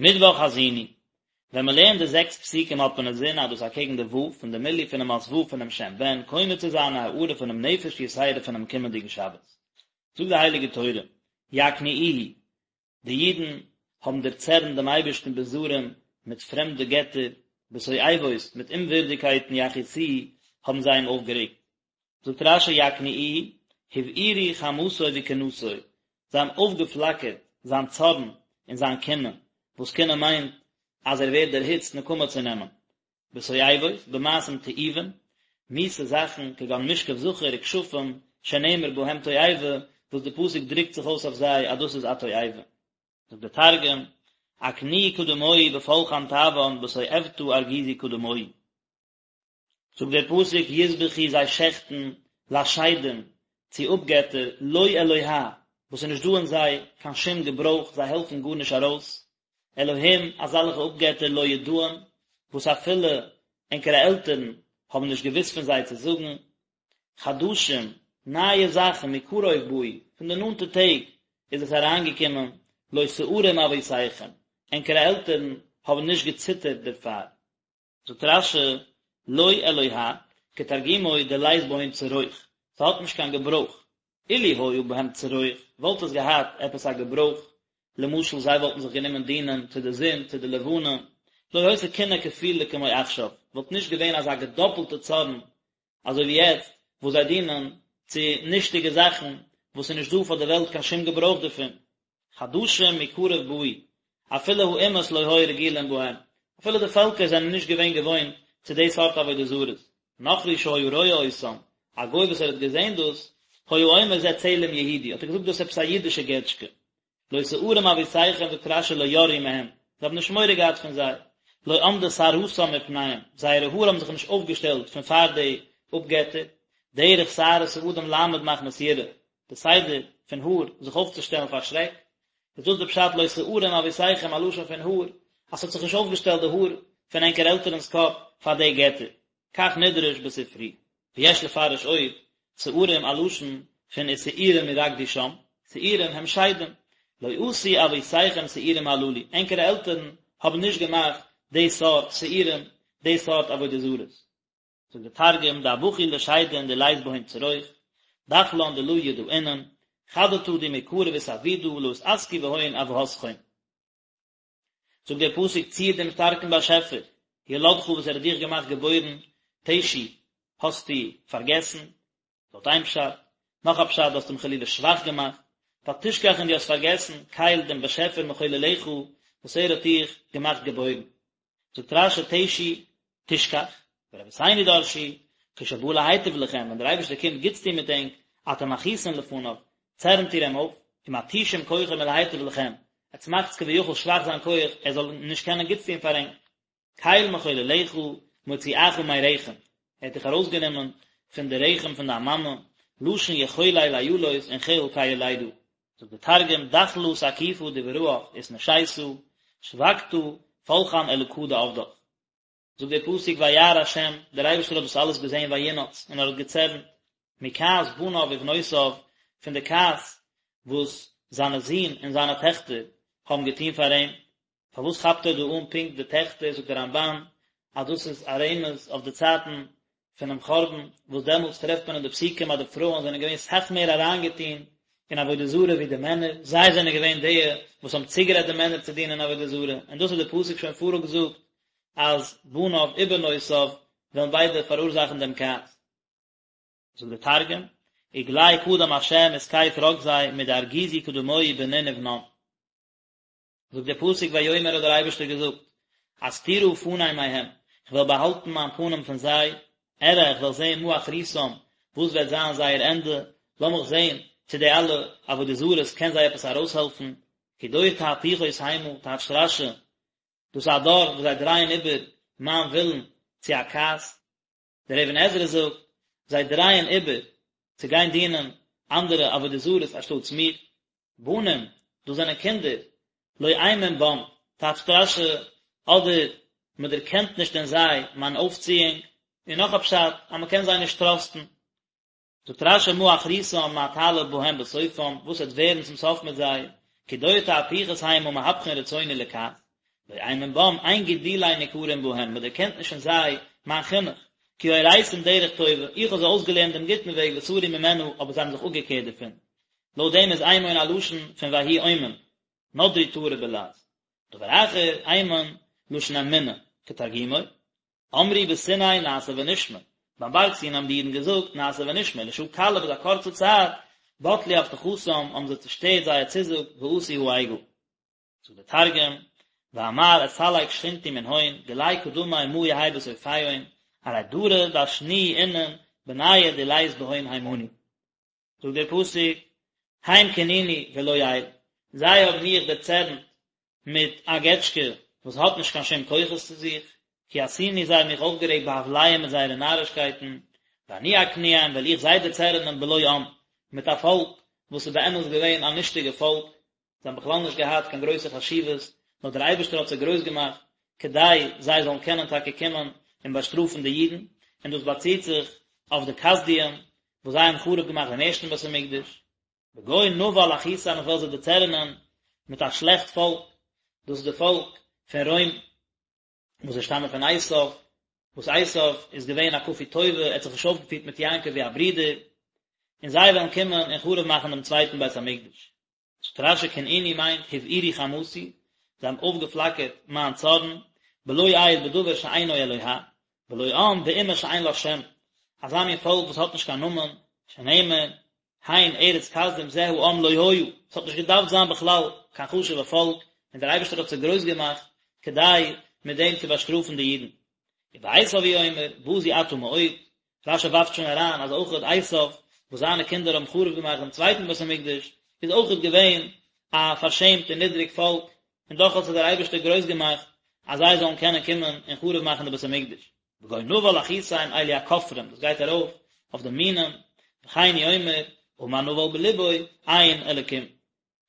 מיטוואך האזינו, ווען מען לערנט די זעקס פסוקים האט מען אינזין אז דאס אקעגן די ו' פון די מילוי פונעם אות ו' פונעם שם בן קונה צו זיין א הארה פונעם נפש יתירה פונעם קומענדיגן שבת. זאגט די הייליגע תורה, יקניאוהו, די אידן האבן דערצערנט דעם אייבערשטן בזרים מיט פרעמדע געטער, בתועבות, מיט אומווירדיגקייטן יכעיסוהו, האבן זיי אים אויפגערעגט. זאגט רש"י יקניאוהו, הבעירו חמתו וקנאתו, זיי האבן אויפגעפלאקערט זיין צארן און זיין קנאה, וואס קנאה מיינט אז ער ווערט דערהיצט נקמה צו נעמען, בתועבות, במעשים תועובים, מיסע זאכן, כגון משכב זכר וכשפים, שנאמר בהם תועבה, וואס די פסוק דרוקט זיך אויס אויף זיי אז דאס איז א תועבה. זאגט דער תרגום, אקניאו קדמוהי בפולחן טבען בתועבתא ארגיזו קדמוהי. זאגט דער פסוק יזבחו זיי שעכטן לשדים צו אפגעטער לא אלוה וואס איז נישט דא אין זיי קיין שום געברויך זיי העלפן גארנישט ארויס, אלהים אזאלעכע אפגעטער לא ידעים וואס אפילו ענקערע עלטערן האבן נישט געוואוסט פון זיי צו זאגן, חדשים נייע זאכן מקרוב באו פון די נאנטע טעג איז עס אריינגעקומען לא שערום אבותיכם ענקערע עלטערן האבן נישט געציטערט דערפאר. זאגט רש"י, לא אלוה, כתרגומו דלית בהון צרוך, ס'האט נישט קיין געברויך, אילו היה בהם צרוך, וואלט עס געהאט עפעס א געברויך, למשל זיי וואלטן זיך גענומען דינען צו די זון, צו די לבנה, לא היתה קנאה כפולה כמו עכשיו, וואלט נישט געווען אזא געדאפלטע צארן אזוי ווי יעצט וואס זיי דינען צו נישטיגע זאכן וואס איז נישט דא פאר די וועלט קיין שום געברויך דערפון. חדשים מקרוב באו, אפילו האומות לא היו רגילים בהם, אפילו די פעלקער זענען נישט געווען געוואוינט צו די סארט עבודה זרות, נכרי שהיה רואה אותם, א גוי וואס ער האט געזען דאס, היה אומר זה צלם יהודי, האט ער געזאגט דאס איז עפעס א אידישע געטשקע, לא שערום אבותיכם זאגט רש"י לא יראו מהם, זיי האבן נישט מורא געהאט פון זיי, לא עמדה שערתם מפניהם, זייערע האר האבן זיך נישט אויפגעשטעלט פון פאר די אפגעטער, דרך שערות האדם לעמוד מחמת יראה, די סדר פון האר זיך אויפצושטעלן פאר שרעק, איז דאס די פשט לא שערום אבותיכם א לשון פון האר, אז ס'האט זיך נישט אויפגעשטעלט די האר פון ענקער עלטערנס קאפ פאר די געטער, כך נדרש בספרי. ויש לפרש עוד, שערים א לשון פון ושעירים ירקדו שם, שעירים הם שדים, לא עשו אבותיכם שעירים הללו, ענקערע עלטערן האבן נישט געמאכט די סארט שעירים, די סארט עבודה זרות. זאגט די תרגום, דאבחו לשדין דלית בהון צרוך, דחלן דלא ידעינן, חדתא דמקרב אתעבידא לא אתעסקו בהון אבהתכון. זאגט דער פסוק צור דעם שטארקן באשעפער, ילדך וואס ער האט דיך געמאכט געבוירן, תשי, האסטו פארגעסן, לויט איין פשט, נאך א פשט, דו האסט אים חלילה שוואך געמאכט, ותשכח און דו האסט פארגעסן, קל דעם באשעפער מחוללך, וואס ער האט דיך געמאכט געבוירן. זאגט רש"י תשי, תשכח, ורבותינו דרשו, כשבא להיטיב לכם, ווען דער אייבערשטער קומט גוטס טון מיט ענק, אתם מכעיסין לפניו, צערנט איר אים אויף, ומתישים כוחו מלהיטיב לכם, עטס מאכטס כביכול שוואך זיין כח, ער זאל נישט קענען גוטס טון פאר ענק. קל מחוללך, מוציאך מרחם, ער האט דיך ארויסגענומען פון די רחם פון דיין מאמע, לשון יחולל איילות און חיל כיולדה. זאגט דער תרגום, דחלא תקיפא דבראך אתנשיתא, שבקתא פלחן אלקא דעבדך. זאגט דער פסוק וירא ה', דער אייבערשטער האט דאס אלעס געזען וינאץ, און ער האט געצערנט, מכעס בניו ובנותיו, פון די כעס וואס זיינע זין און זיינע טעכטער האבן געטון פאר אים. פארוואס כאפט ער דא אן פונקט די טעכטער, זאגט דער רמב"ן אז דאס איז א רמז אויף די צייטן פונעם חורבן, וואס דעמאלטס טרעפט מען אין די פסוקים אז די פרויען זענען געווען סאך מער אריינגעטון אין עבודה זרה ווי די מענער, זיי זענען געווען די וואס האבן צוגערעדט די מענער צו דינען עבודה זרה, און דאס האט דער פסוק שוין פאראויסגעזאגט אז בניו ובנותיו וועלן ביידע פאראורזאכן דעם כעס. זאגט דער תרגום, וגלי קדם השם ותקיף רגזיה מדארגיזו קדמוהי בנין ובנן. זאגט דער פסוק ויאמר האט דער אייבערשטער געזאגט, אסתירה פני מהם, איך וועל באהאלטן מיין פנים פון זיי, אראה איך וועל זען מה אחריתם, וואס וועט זיין זייער ענדע, לאמיך זען צו די אלע עבודה זרות קען זיי עפעס ארויסהעלפן, כי דור תהפוכות המה, טייטשט רש"י, דאס איז א דור וואס זיי דרייען איבער מיין ווילן צו א כעס. דער אבן עזרא זאגט, זיי דרייען איבער צו גיין דינען אנדערע עבודה זרות אנשטאטס מיר. בנים, דאס זענען קינדער, לא אמון בם, טייטשט רש"י, אדער מען דערקענט נישט אין זיי מיין אויפציאונג, און נאך א פשט, אז מען קען זיי נישט טראסטן. זאגט רש"י מה אחריתם מה תעלה בהם בסופם, וואס וועט ווערן צום סוף מיט זיי, כי דור תהפוכות המה מהפכין רצוני לכעס. לא אימון בם, אין גידולי ניכרים בהם, מען דערקענט נישט אין זיי מיין חינוך, כי הוריתים דרך טובה, איך האב זיי אויסגעלערנט דעם גוטן וועג וסרו ממנה, אבער זיי האבן זיך אפגעקערט דערפון. לויט דעם איז אימון א לשון פון ויהי אומן, נדרי טהרי בלעז. דבר אחר, אימון, לשון אמונה, כתרגומו, אמרו בסיני נעשה ונשמע, ביים בארג סיני האבן די אידן געזאגט נעשה ונשמע, לשעה קלה ביז א קורצע צייט, בטלו הבטחתם, האבן זיי צושטערט זייער צוזאג, ועשו העגל. זאגט דער תרגום, ואמר אסלק שכינתי מנהון, גלי קדמי מה יהי בסופיהון, ארי דרא דשנוהי אינון, בניא דלית בהון הימנא. זאגט דער פסוק, הם קנאוני בלא אל, זיי האבן מיך דערצערנט מיט א געטשקע וואס האט נישט קיין שום כוחות צו זיך, כעסוני זיי האבן מיך אויפגערעגט בהבליהם מיט זייערע נארישקייטן, ואני אקניאם וועל איך זיי דערצערענען בלא עם, מיט א פאלק וואס איז באמת געווען א נישטיגע פאלק, זיי האבן בכלל נישט געהאט קיין גרויסע חשיבות, נאר דער אייבערשטער האט זיי גרויס געמאכט, כדי זיי זאלן קענען טאקע קומען און באשטראפן די אידן, און דאס באציט זיך אויף די כשדים וואס זיי האבן חרוב געמאכט דעם ערשטן בית המקדש. בגוי נבל אכעיסם איך וועל זיי דערצערענען מיט א שלעכט פאלק, דאס איז די פאלק פון רוים, וואס זיי שטאמען פון עשיו, וואס עשיו איז געווען א כפוי טובה, ער האט זיך נישט אויפגעפירט מיט יעקב ווי א ברודער, און זיי וועלן קומען און חרוב מאכן דעם צווייטן בית המקדש. זאגט רש"י קנאוני מיינט הבעירו חמתי, זיי האבן אויפגעפלאקערט מיין צארן, בלא אל בדבר שאינו אלוה, בלא עם באומה שאין לה שם, אזא מין פאלק וואס האט נישט קיין נאמען, שנאמר, הן ארץ כשדים זה העם לא היה, עס האט נישט געדארפט זיין בכלל קיין חשוב'ע פאלק, און דער אייבערשטער האט זיי גרויס געמאכט כדי מיט דעם צו באשטראפן די אידן. ובעשו הוא אומר, בזוי אתה מאוד, רש"י ווארפט שוין אריין אז אויכעט עשו, וואס זיינע קינדער האבן חרוב געמאכט דעם צווייטן בית המקדש, איז אויכעט געווען א פארשעמט און נידריג פאלק, און דאך האט זיי דער אייבערשטער גרויס געמאכט אז זיי זאלן קענען קומען און חרוב מאכן די בית המקדש. בגוי נבל אכעיסם אלו הכופרים, דאס גייט ארויף אויף די מינים, וכן הוא אומר, אמר נבל בלבו, אין אלקים.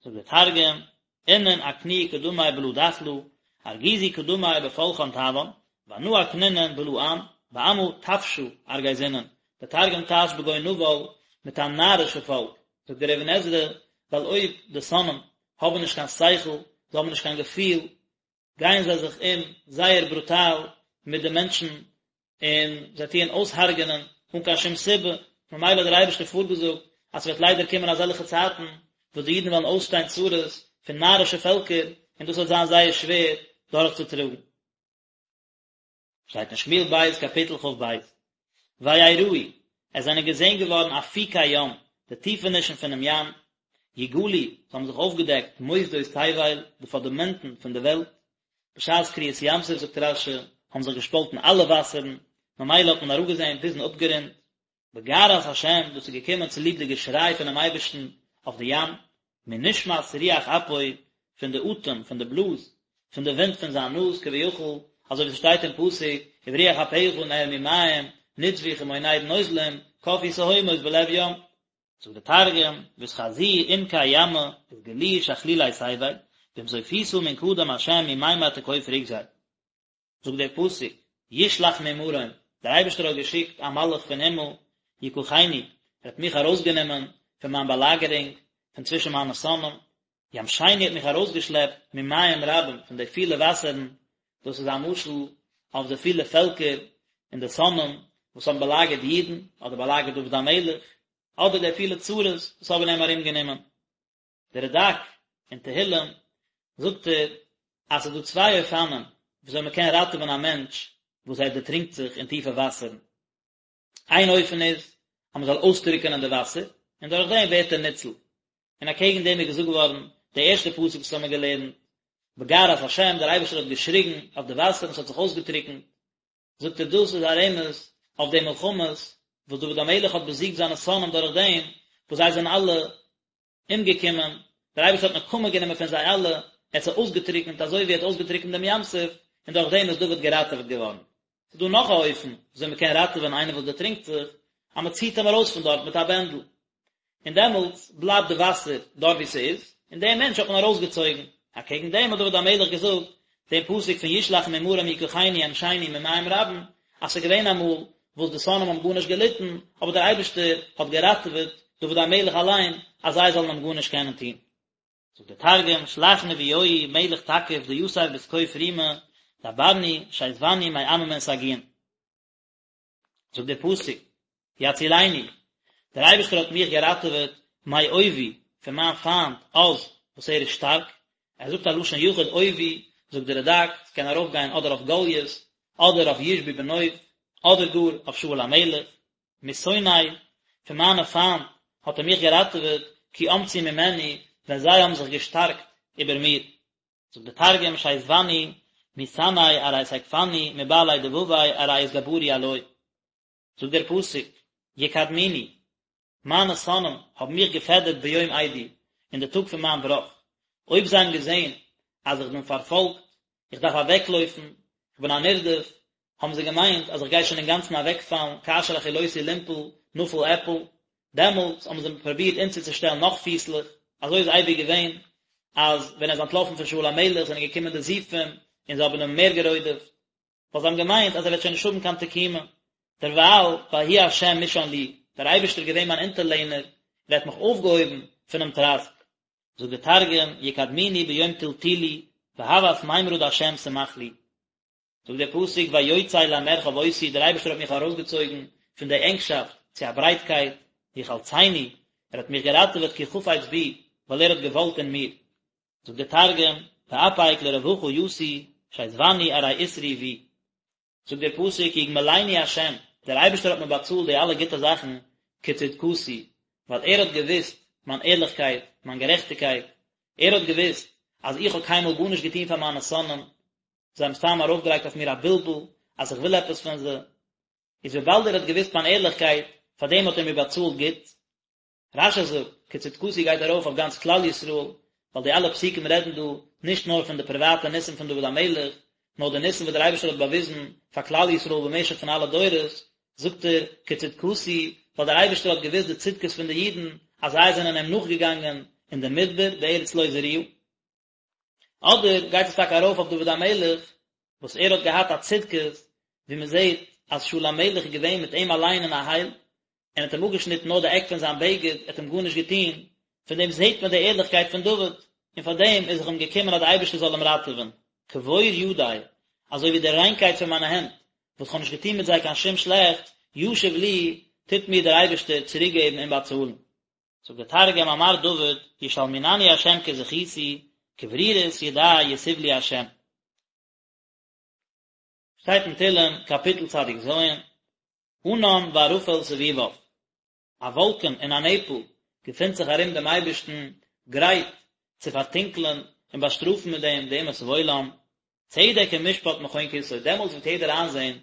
זאגט דער תרגום, אינון אקניאו קדמי בלא דחלא, ארגיזו קדמי בפולחן טבאן, ואנא אקנינון בלא עם, בעמא טפשא ארגזינון, דער תרגום טייטשט בגוי נבל מיט א נארישע פאלק, זאגט דער אבן עזרא, ווייל אויב די שונאים האבן נישט קיין שכל, זיי האבן נישט קיין געפיל, גייען זיי זיך אום זייער ברוטאל מיט די מענטשן און זיי טוען אויסהרג'ענען אן קיין שום סיבה, ממילא האט דער אייבערשטער פארגעזאגט אז ס'וועט ליידער קומען אזעלכע צייטן וואס די אידן וועלן אויסשטיין צרות פון נארישע פעלקער און דאס וועט זיין זייער שווער דורכצוטראגן. שטייט אין שמואל ב' קאפיטל כ"ב, ויראו, עס זענען געזען געווארן אפיקי ים, די טיפענישן פונעם ים, יגלו, עס האבן זיך אויפגעדעקט מוסדות תבל, די פונדאמענטן פון די וועלט, בשעת קריעת ים סוף זאגט רש"י, האבן זיך געשפאלטן אלע וואסערן, ממילא האט מען אראפגעזען ביזן אפגרונד, בגערת השם, דאס איז געקומען צוליב די געשריי פונעם אייבערשטן אויף די ים, מנשמת רוח אפו, פון די אטעם, פון די בלאז, פון די ווינט פון זיין נאז, כביכול, אזוי ווי ס'שטייט אין פסוק, וברוח אפיך נערמו מים, נצבו כמונד נוזלים, קפאו תהומות בלב ים. זאגט די תרגום, ואתחזו עמקי ימא, אתגלו שכלולי תבל, במזופיתא מן קדם השם ממימר תקוף רוגזיה. זאגט דער פסוק, ישלח ממרום, דער אייבערשטער האט געשיקט א מלאך פון הימל, יקחני, ער האט מיך ארויסגענומען פון מיין באלאגערונג, פון צווישן מיינע שונאים, ימשני האט מיך ארויסגעשלעפט ממים רבים, פון די פילע וואסערן, דאס איז א משל אויף די פילע פעלקער און די שונאים וואס האבן באלאגערט די אידן, אדער באלאגערט דוד המלך, אדער די פילע צרות וואס האבן אים ארומגענומען. דער רד"ק אין תהילים זאגט ער אז ס'איז דא צוויי אופנים וויאזוי מען קען ראטעווען א מענטש וואס ער דערטרינקט זיך אין טיפע וואסערן. איין אופן איז אז מען זאל אויסטרוקענען די וואסער און דורך דעם ווערט ער ניצול. און אקעגן דעם איז געזאגט געווארן די ערשטע פסוק וואס האמיר געלערנט, בגערת השם, דער אייבערשטער האט געשריגן אויף די וואסער און ס'האט זיך אויסגעטרוקנט. זאגט ער דאס איז א רמז אויף די מלחמות וואס דוד המלך האט באזיגט זיינע שונאים דורך דעם וואס זיי זענען אלע אומגעקומען, דער אייבערשטער האט נקמה גענומען פון זיי אלע, ער האט זיי אויסגעטריקנט אזוי ווי ער האט אויסגעטריקנט דעם ים סוף, און דורך דעם איז דוד געראטעוועט געווארן. ס'איז דא נאך א אופן וויאזוי מען קען ראטעווען איינער וואס דערטרינקט זיך, אז מען ציט אים ארויס פון דארט מיט א בענדל, און דעמאלטס בלייבט די וואסער דארט וואו ס'איז, און דעם מענטש האט מען ארויסגעצויגן. אקעגן דעם האט דוד המלך געזאגט דעם פסוק פון ישלח ממרום יקחני ימשני ממים רבים, אז ס'איז געווען אמאל וואס די שונאים האבן גארנישט געליטן, אבער דער אייבערשטער האט געראטעוועט דוד המלך אליין אז זיי זאלן אים גארנישט קענען טון. זאגט דער תרגום, שלח נביואי מלך תקיף דיתיב בתקוף רימא, דברני שיזבני מעממין סגיאין. זאגט דער פסוק, יצילני, דער אייבערשטער האט מיך געראטעוועט מאויבי, פון מיין פיינט עז, וואס ער איז שטארק, ער זאגט א לשון יחיד אויבי, זאגט דער רד"ק, ס'קען ארויפגיין אדער אויף גלית, אדער אויף ישבי בנוב, אדער גאר אויף שאול המלך, משונאי, פון מיינע פיינט האט ער מיך געראטעוועט, כי אמצו ממני, ווען זיי האבן זיך געשטארקט איבער מיר. זאגט דער תרגום שיזבני מסנאי ארי תקפני מבעלי דבבי ארי אתגברו עלוי. זאגט דער פסוק, יקדמוני, מיינע שונאים האבן מיך געפעדערט ביום אידי, אין די טאג פון מיין בראך, אויב זיי האבן געזען אז איך בין פארפאלגט, איך דארף אוועקלויפן, איך בין א נרדף, האבן זיי געמיינט אז איך גיי שוין אינגאנצן אוועקפאלן, כאשר החילותי לנפול, נפול אפול, דעמאלטס האבן זיי פרובירט אונטערצושטעלן נאך פיסלעך, אזוי איז אייביג געווען, אז ווען ער איז אנטלאפן פון שאול המלך זענען געקומען די זיפים און זיי האבן אים מער גערודפ'ט, ווייל זיי האבן געמיינט אז ער וועט שוין נישט האבן קיין תקומה. דערווייל, ויהי ה' משען לי, דער אייבערשטער איז געווען מיין אונטערלענער, ער האט מיך אויפגעהויבן פונעם טראסק. זאגט דער תרגום, יקדמוני ביום טלטולי, והות מימרא דה' סמך לי. זאגט דער פסוק ויוצא למרחב אותי, דער אייבערשטער האט מיך ארויסגעצויגן פון די ענגשאפט צו א ברייטקייט, יחלצני, ער האט מיך געראטעוועט כי חפץ בי, ווייל ער האט געוואלט אין מיר. זאגט דער תרגום, ואפיק לרווחא יתי, שיזבני ארי אתרעי בי. זאגט דער פסוק יגמלני ה', דער אייבערשטער האט מיר באצאלט די אלע גוטע זאכן כצדקתי, ווייל ער האט געוואוסט מיין ערליכקייט, מיין גערעכטיגקייט, ער האט געוואוסט אז איך האב קיינמאל גארנישט געטון פאר מיינע שונאים, זיי האבן סתם ארויפגעלייגט אויף מיר א בלבול אז איך וויל עפעס פון זיי, איז וויבאלד ער האט געוואוסט מיין ערליכקייט, פאר דעם האט ער מיר באצאלט גוט. רש"י זאגט, כצדקתי גייט ארויף אויף גאנץ כלל ישראל, ווייל די אלע פסוקים רעדן דא נישט נאר פון די פריוואטע ניסים פון דוד המלך, נאר די ניסים וואס דער אייבערשטער האט באוויזן פאר כלל ישראל במשך פון אלע דורות, זאגט ער, כצדקתי, ווייל דער אייבערשטער האט געוואוסט די צדקות פון די אידן, אז זיי זענען אים נאכגעגאנגען אין די מדבר בארץ לא זרועה. אדער גייט עס טאקע ארויף אויף דוד המלך וואס ער האט געהאט א צדקות, ווי מען זעט אז שאול המלך איז געווען מיט אים אליין אין א הייל, און האט אים אפגעשניטן נאר די עק פון זיין בגד, ער האט אים גארנישט געטון, פון דעם זעט מען די ערליכקייט פון דוד, און פאר דעם איז זיך אים געקומען אז דער אייבערשטער זאל אים ראטעווען. כבור ידי, אזוי ווי די ריינקייט פון מיינע הענט, וואס כ'האב נישט געטון מיט זיי קיין שום שלעכטס, ישיב לי, טוט מיר דער אייבערשטער צוריקגעבן און באצאלן. זאגט דער תרגום אמר דוד ישלמינני ה' כזכותי כברירות ידי יתיב לי ה'. שטייט אין תהלים קאפיטל צדיק ז, ענן וערפל סביביו, א וואלקן און א נעפל געפינט זיך ארום דעם אייבערשטן, גרייט צו פארטונקלען און באשטראפן מיט דעם די אומות העולם, צדק ומשפט מכון כסאו, דעמאלטס וועט יעדער איינזען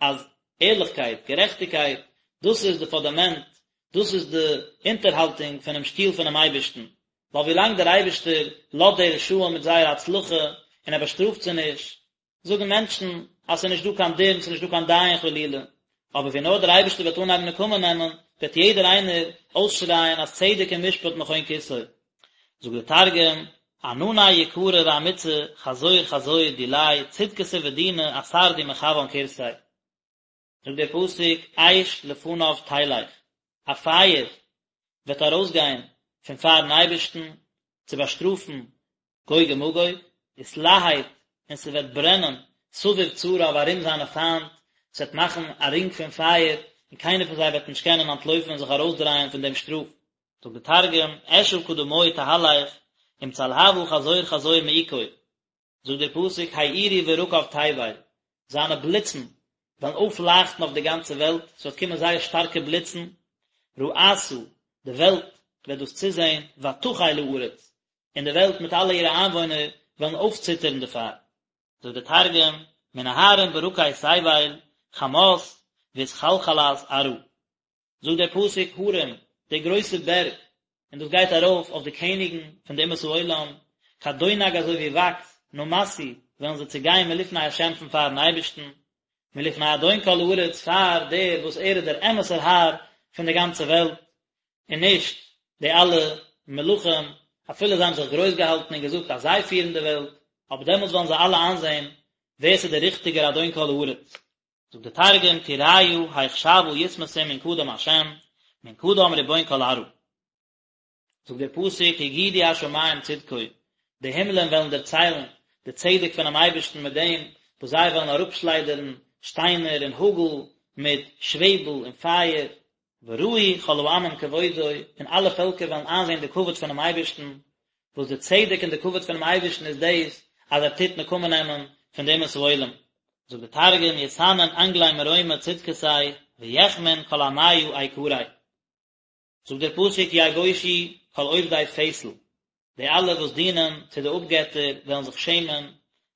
אז ערליכקייט, גערעכטיגקייט, דאס איז די פונדאמענט, דאס איז די אונטערהאלטונג פונעם שטול פונעם אייבערשטן, ווייל ווילאנג דער אייבערשטער לאזט די רשעים מיט זייער הצלחה און ער באשטראפט זיי נישט, זאגן מענטשן אז ס'איז נישט דא קיין דין, ס'איז נישט דא קיין דיין חלילה, אבער ווי נאר דער אייבערשטער וועט אנהייבן נקמה נעמען, וועט יעדער איינער אויסשרייען אז צדק ומשפט מכון כסאו. זאגט דער תרגום, ענני יקרא ואמיצא חזור חזור דיליה צדקתא ודינא אתר די מחוון כורסיה. זאגט דער פסוק אש לפניו תלך, א פייער וועט ארויסגיין פון פארן אייבערשטן צו באשטראפן גוג ומגוג, ותלהט, און ס'וועט ברענען סביב צריו ארום זיינע פיינט, ס'וועט מאכן א רינג פון פייער, און קיינער פון זיי וועט נישט קענען אנטלויפן און זיך ארויסדרייען פון דעם שטראף. זאגט דער תרגום, אשא קדמוי תהלך, עם צלהבא חזור חזור מעיקוי. זאגט דער פסוק האירו ברקיו תבל, זיינע בליצן וועלן אויפלייכטן אויף די גאנצע וועלט, ס'וועט קומען זייער שטארקע בליצן, ראתה, די וועלט וועט דאס צוזען, ותחל הארץ, און די וועלט מיט אלע אירע איינוואוינער וועלן אויפציטערן דערפאר. זאגט דער תרגום, מנהרין ברקי תבל, חמת, ואתחלחלת ארעא. זאגט דער פסוק הרים, די גרויסע בערג, און דאס גייט ארויף אויף די קעניגן פון די אומות העולם, כדונג אזוי ווי וואקס, נמסו, וועלן זיי צעגיין מלפני השם פון פארן אייבערשטן, מלפני אדון כל הארץ, פאר דער וואס ער איז דער אמת'ער האר פון די גאנצע וועלט, און נישט די אלע מלכים, אפילו זיי האבן זיך גרויס געהאלטן און געזאגט אז זיי פירן די וועלט, אבער דעמאלטס וועלן זיי אלע איינזען ווער ס'איז דער ריכטיגער אדון כל הארץ. זאגט דער תרגום, טוריא היך שעווא יתמסון מן קדם השם, מן קדם ריבון כל ארעא. זאגט דער פסוק הגידו השמים צדקו, די הימלען וועלן דערציילן די צדק פונעם אייבערשטן מיט דעם וואס זיי וועלן אראפשליידערן שטיינער און האגל מיט שוועבל און פייער, וראו כל העמים כבודו, און אלע פעלקער וועלן איינזען די כבוד פונעם אייבערשטן, וואס די צדק און די כבוד פונעם אייבערשטן איז דאס אז ער טוט נקמה נעמען פון די אומות העולם. זאגט דער תרגום יתנון אנגלי מרומא צדקתיה ויחמון כל עמיא איקריה. זאגט דער פסוק יבושו כל עובדי פסל, די אלע וואס דינען צו די אפגעטער וועלן זיך שעמען,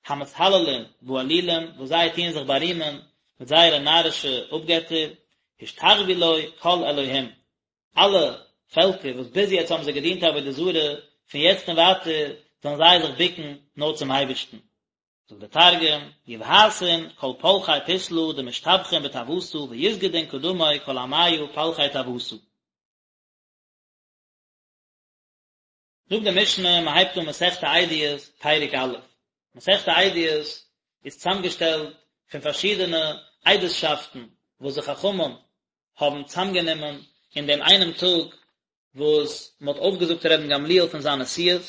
המתהללים באלילים, וואס זיי טוען זיך בארימען מיט זייערע נארישע אפגעטער, השתחוו לו כל אלהים, אלע פעלקער וואס ביז יעצט האבן זיי געדינט עבודה זרה, פון יעצט און ווייטער זאלן זיי זיך בוקן נאר צום אייבערשטן. זאגט דער תרגום, יבהתון כל פלכי פסלא דמשתבחין בטעותא ויסגדון קדמוי כל עמיא פלכי טעותא. זאגט די משנה, מען הייבט אן מסכת עדיות, פרק א'. מסכת עדיות איז צוזאמגעשטעלט פון פארשידענע עדות'שאפטן וואס די חכמים האבן צוזאמגענומען אין דעם איינעם טאג וואס מען האט אויפגעזאגט רבן גמליאל פון זיין נשיאות,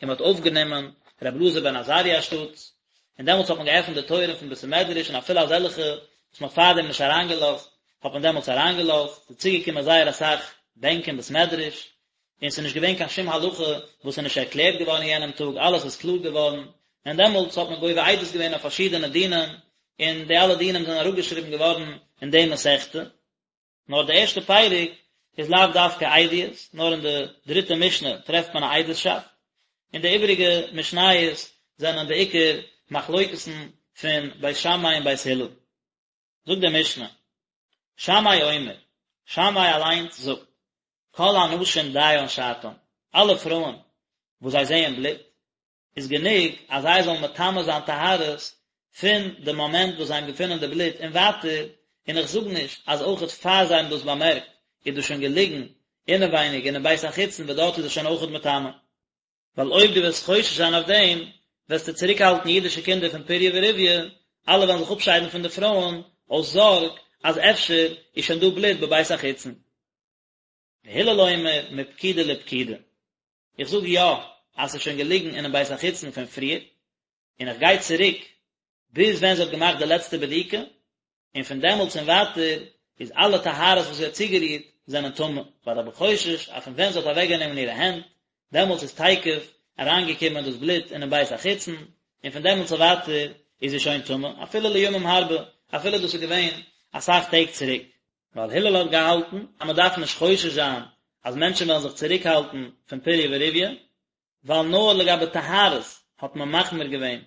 און מען האט אויפגענומען רבי אלעזר בן עזריה אנשטאטס, און דעמאלטס האט מען געעפנט די טויערן פון בית המדרש און אפילו אזעלכע וואס מען האט פארדעם נישט אריינגעלאזט, האט מען דעמאלטס אריינגעלאזט, ס'איז צוגעקומען זייער אסאך בענק אין בית מדרש, און ס'איז נישט געווען קיין שום הלכה וואס איז נישט ערקלערט געווארן אין יענעם טאג, אלעס איז קלאר געווארן, און דעמאלטס האט מען גובה עדות געווען אויף פארשידענע דינים, און די אלע דינים זענען אראפגעשריבן געווארן אין די מסכתא. נאר די ערשטע פרק איז לאו דווקא עדיות, נאר אין די דריטע משנה טרעפט מען א עדות'שאפט, און די איבעריגע משניות זענען בעיקר מחלוקת'ן פון בית שמאי און בית הלל. זאגט די משנה, שמאי אומר, שמאי אליינס זאגט, כל הנשים דיין שעתן, אלע פרויען וואס זיי זעען בלוט, איז גענוג אז זיי זאלן מטמא זיין טהרות פון די מאמענט וואס זיי האבן געפונען די בלוט און ווייטער, און איך זאג נישט אז אויכעט פאר זיי האבן דאס באמערקט איז דאס שוין געליגן אינעווייניג אינעם בית החיצון וואס דארט איז עס שוין אויכעט מטמא. ווייל אויב דו וועסט חושש זיין אויף דעם, וועסטו צוריקהאלטן אידישע קינדער פון פריה ורביה, אלע וועלן זיך אפשיידן פון די פרויען אויס זארג אז אפשר איז שוין דא בלוט בבית החיצון. והלל אומר מפקידה לפקידה. איך זאג יא אז ס'איז שוין געליגן אינעם בית החיצון פון פריער, און איך גיי צוריק ביז ווען זי האט געמאכט די לעצטע בדיקה, און פון דעמאלטס און ווייטער איז אלע טהרות וואס זי האט צוגערירט זענען טמא, ווייל איך בין חושש אז פון ווען זי האט אוועקגענומען אירע הענט, דעמאלטס איז תיכף אריינגעקומען דאס בלוט אינעם בית החיצון, און פון דעמאלטס און ווייטער איז זי שוין טמא, אפילו לימים הרבה, אפילו דאס איז געווען אסאך טעג צוריק. ווייל הלל האט געהאלטן אז מען דארף נישט חושש זיין אז מענטשן וועלן זיך צוריקהאלטן פון פריה ורביה, ווייל נאר לגבי טהרות האט מען מחמיר געווען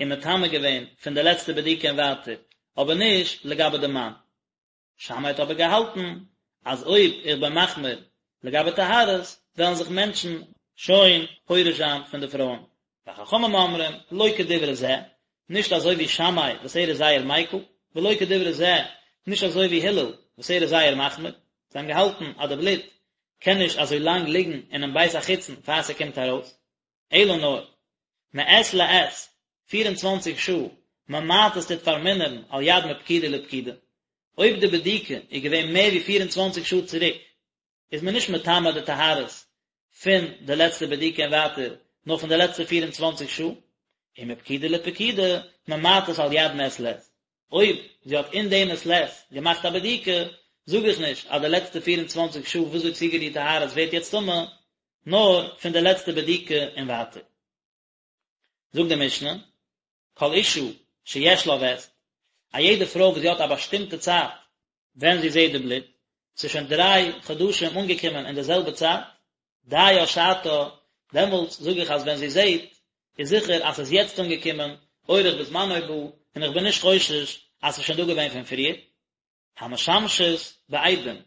און מטמא געווען פון די לעצטע בדיקה און ווייטער, אבער נישט לגבי די מאן. שמאי האט אבער געהאלטן אז אויב איך בין מחמיר לגבי טהרות וועלן זיך מענטשן שוין פורש זיין פון די פרויען. וחכמים אומרים, לא כדברי זה, נישט אזוי ווי שמאי וואס ער איז זייער מיקל, ולא כדברי זה, נישט אזוי ווי הלל וואס ער איז זייער מחמיר, זיי האבן געהאלטן אז די בלוט קען נישט אזוי לאנג ליגן אינעם בית החיצון פאר ס'קומט ארויס, אלא נאר, מעת לעת, 24 שעה, ממעטת טוט פארמינערן על יד מפקידה לפקידה, אויב די בדיקה איז געווען מער ווי 24 שעה צוריק, איז מען נישט מטמא די טהרות פון די לעצטע בדיקה און ווייטער, נאר פון די לעצטע 24 שעה, ומפקידה לפקידה ממעטת על יד מעת לעת. אויב זי האט אין דעם מעת לעת געמאכט א בדיקה, זאג איך נישט אז די לעצטע 24 שעה וואס זי האט צוגערירט טהרות ווערט יעצט טמא, נאר פון די לעצטע בדיקה און ווייטער. זאגט די משנה, כל אשה שיש לה וסת, א יעדע פרוי וואס זי האט א באשטימטע צייט ווען זי זעט די בלוט, ס'איז שוין דריי חדשים אנגעקומען אין די זעלבע צייט, דיה שעתה, דעמאלטס זאג איך אז ווען זי זעט, איז זיכער אז ס'איז יעצט אנגעקומען, אורח בזמנו בא, און איך בין נישט חושש אז ס'איז שוין דא געווען פון פריער. המשמשת בעדים,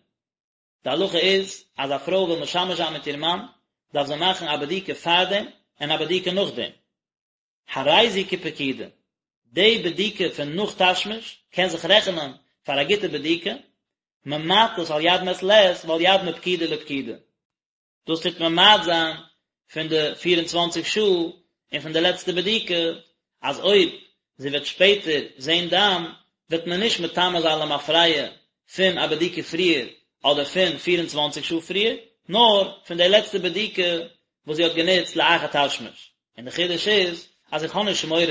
די הלכה איז אז א פרוי וויל משמש זיין מיט איר מאן, דארף זי מאכן א בדיקה פארדעם און א בדיקה נאכדעם. הרי זו כפקידה, די בדיקה פון נאך תשמיש קען זיך רעכענען פאר א גוטע בדיקה, ממעטת על יד מעת לעת ועל יד מפקידה לפקידה. דאס טוט ממעט זיין פון די פיר און צוואנציג שעה און פון די לעצטע בדיקה, אז אויב זי וועט שפעטער זען דם וועט מען נישט מטמא זיין למפרע פון א בדיקה פריער אדער פון 24 שעה פריער, נאר פון די לעצטע בדיקה וואס זי האט גענוצט לאחר תשמיש, און די חידוש איז אז איך האב נישט מורא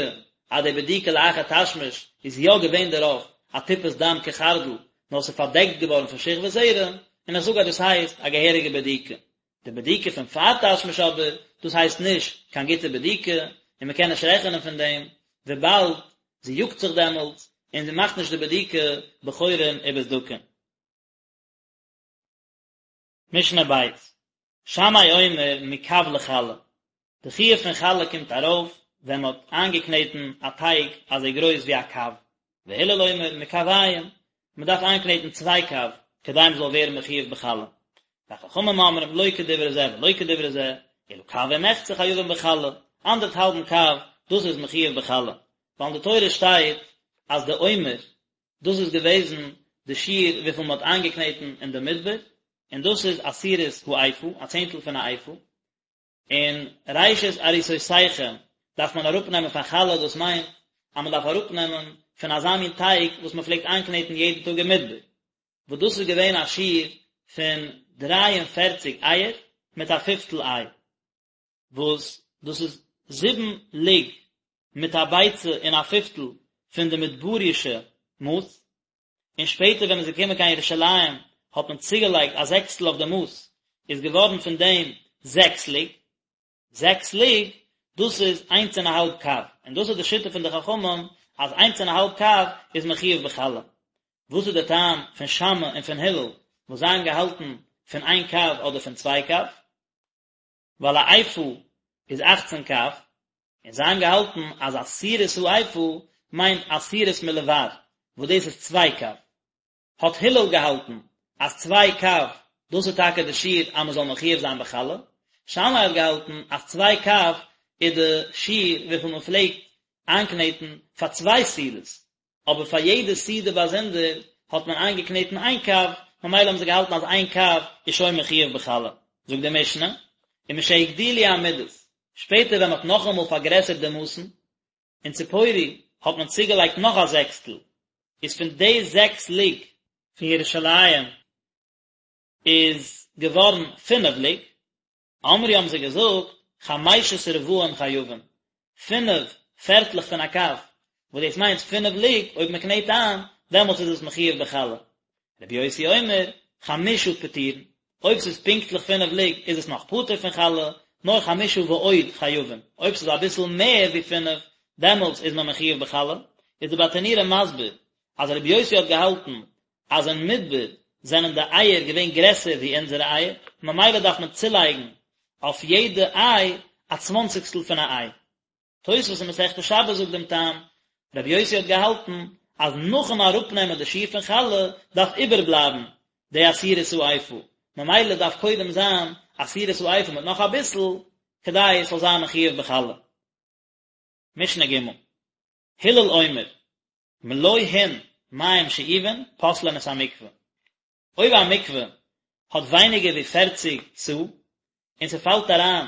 אז די בדיקה לאחר תשמיש איז יא געווען דערויף א טיפת דם כחרדל, נאר ס'איז פארדעקט געווארן פון שכבת זרע, און איך זאג אז דאס הייסט א געהעריגע בדיקה. די בדיקה פון פאר תשמיש אבער, דאס הייסט נישט קיין גוטע בדיקה, און מען קען נישט רעכענען פון דעם, וויבאלד זי יאגט זיך דעמאלטס, און זי מאכט נישט די בדיקה בחורין ובסדקין. משנה ב', שמאי אומר מקב לחלה, די חיוב פון חלה קומט ארויף ווען מען האט איינגעקנעטן א טייג אזוי גרויס ווי א קב, והלל אומר מקביים, מען דארף איינקנעטן צוויי קב כדי מען זאל ווערן מחויב בחלה, וחכמים אומרים לא כדברי זה ולא כדברי זה, אלא קב ומחצה חייבים בחלה, אנדערטהאלבן קב, דאס איז מחויב בחלה, ווייל אין די תורה שטייט אז די עומר דאס איז געוועזן די שיעור וויפיל מען האט איינגעקנעטן אין די מדבר, און דאס איז עשירית האיפה, א צענטל פון א איפה, און ראשית עריסותיכם דארף מען אראפנעמען פאר חלה, דאס מיינט אז מען דארף אראפנעמען פון אזא מין טייג וואס מען פלעגט איינקנעטן יעדן טאג אין מדבר, וואס דאס איז געווען א שיעור פון דריי און פערציג אייער מיט א פיפטל איי. וואס דאס איז זיבן לוג מיט א ביצה און א פיפטל פון די מדברישע מאס, און שפעטער ווען מען איז געקומען קיין ירושלים האט מען צוגעלייגט א זעקסטל אויף די מאס, איז געווארן פון דעם זעקס לוג, זעקס לוג, דאס איז איינס און א האלב קב, און דאס איז די שיטה פון די חכמים אז איינס און א האלב קב איז מחויב בחלה. וואס איז די טעם פון שמאי און פון הלל וואס זיי האבן געהאלטן פון איין קב אדער פון צוויי קב? ווייל א איפה איז אכצן קב, און זיי האבן געהאלטן אז עשירית האיפה מיינט עשירית מלבר, וואס דאס איז צוויי קב. האט הלל געהאלטן אז צוויי קב דאס איז טאקע די שיעור אז מען זאל מחויב זיין בחלה, שמאי האט געהאלטן אז צוויי קב איז די שיעור וויפיל מען פלעגט איינקנעטן פאר צוויי סעודות, אבער פאר יעדע סעודה באזונדער האט מען איינגעקנעטן איין קב, ממילא האבן זיי געהאלטן אז איין קב איז שוין מחויב בחלה. זאגט די משנה, ומשהגדילו המידות, שפעטער ווען מען האט נאכאמאל פארגרעסערט די מאסן, אין ציפורי האט מען צוגעלייגט נאך א זעקסטל, איז פון די זעקס לוג פון ירושלים איז געווארן פינף לוג, אמרו האבן זיי געזאגט, חמשת רבעים חייבים, פינף פערטלעך פון א קב, וואס דאס מיינט פינף לוג, אויב מען קנעט איין, דעמאלטס איז עס מחויב בחלה. רבי יוסי אומר, חמשה פטורין, אויב ס'איז פונקטליך פינף לוג איז עס נאך פטור פון חלה, נאר חמשה ועוד חייבים, אויב ס'איז אביסל מער ווי פינף, דעמאלטס איז מען מחויב בחלה. איז די ברטנורא מסביר אז רבי יוסי האט געהאלטן אז אין מדבר זענען די אייער געווען גרעסער ווי אונזערע אייער, ממילא דארף מען צולייגן אויף יעדע איי א צוואנציגסטל פון א איי. תוספות אין מסכת שבת זאגט דעם טעם, רבי יוסי האט געהאלטן אז נאכן אראפנעמען די שיעור פון חלה דארף איבערבלייבן די עשירית האיפה, ממילא דארף קודם זיין עשירית האיפה מיט נאך אביסל כדי עס זאל זיין מחויב בחלה. משנה ג', הלל אומר, מלא הין מים שאובין פוסלין את המקווה. אויב א מקווה האט ווייניגער ווי פערציג סאה, און ס'פאלט אריין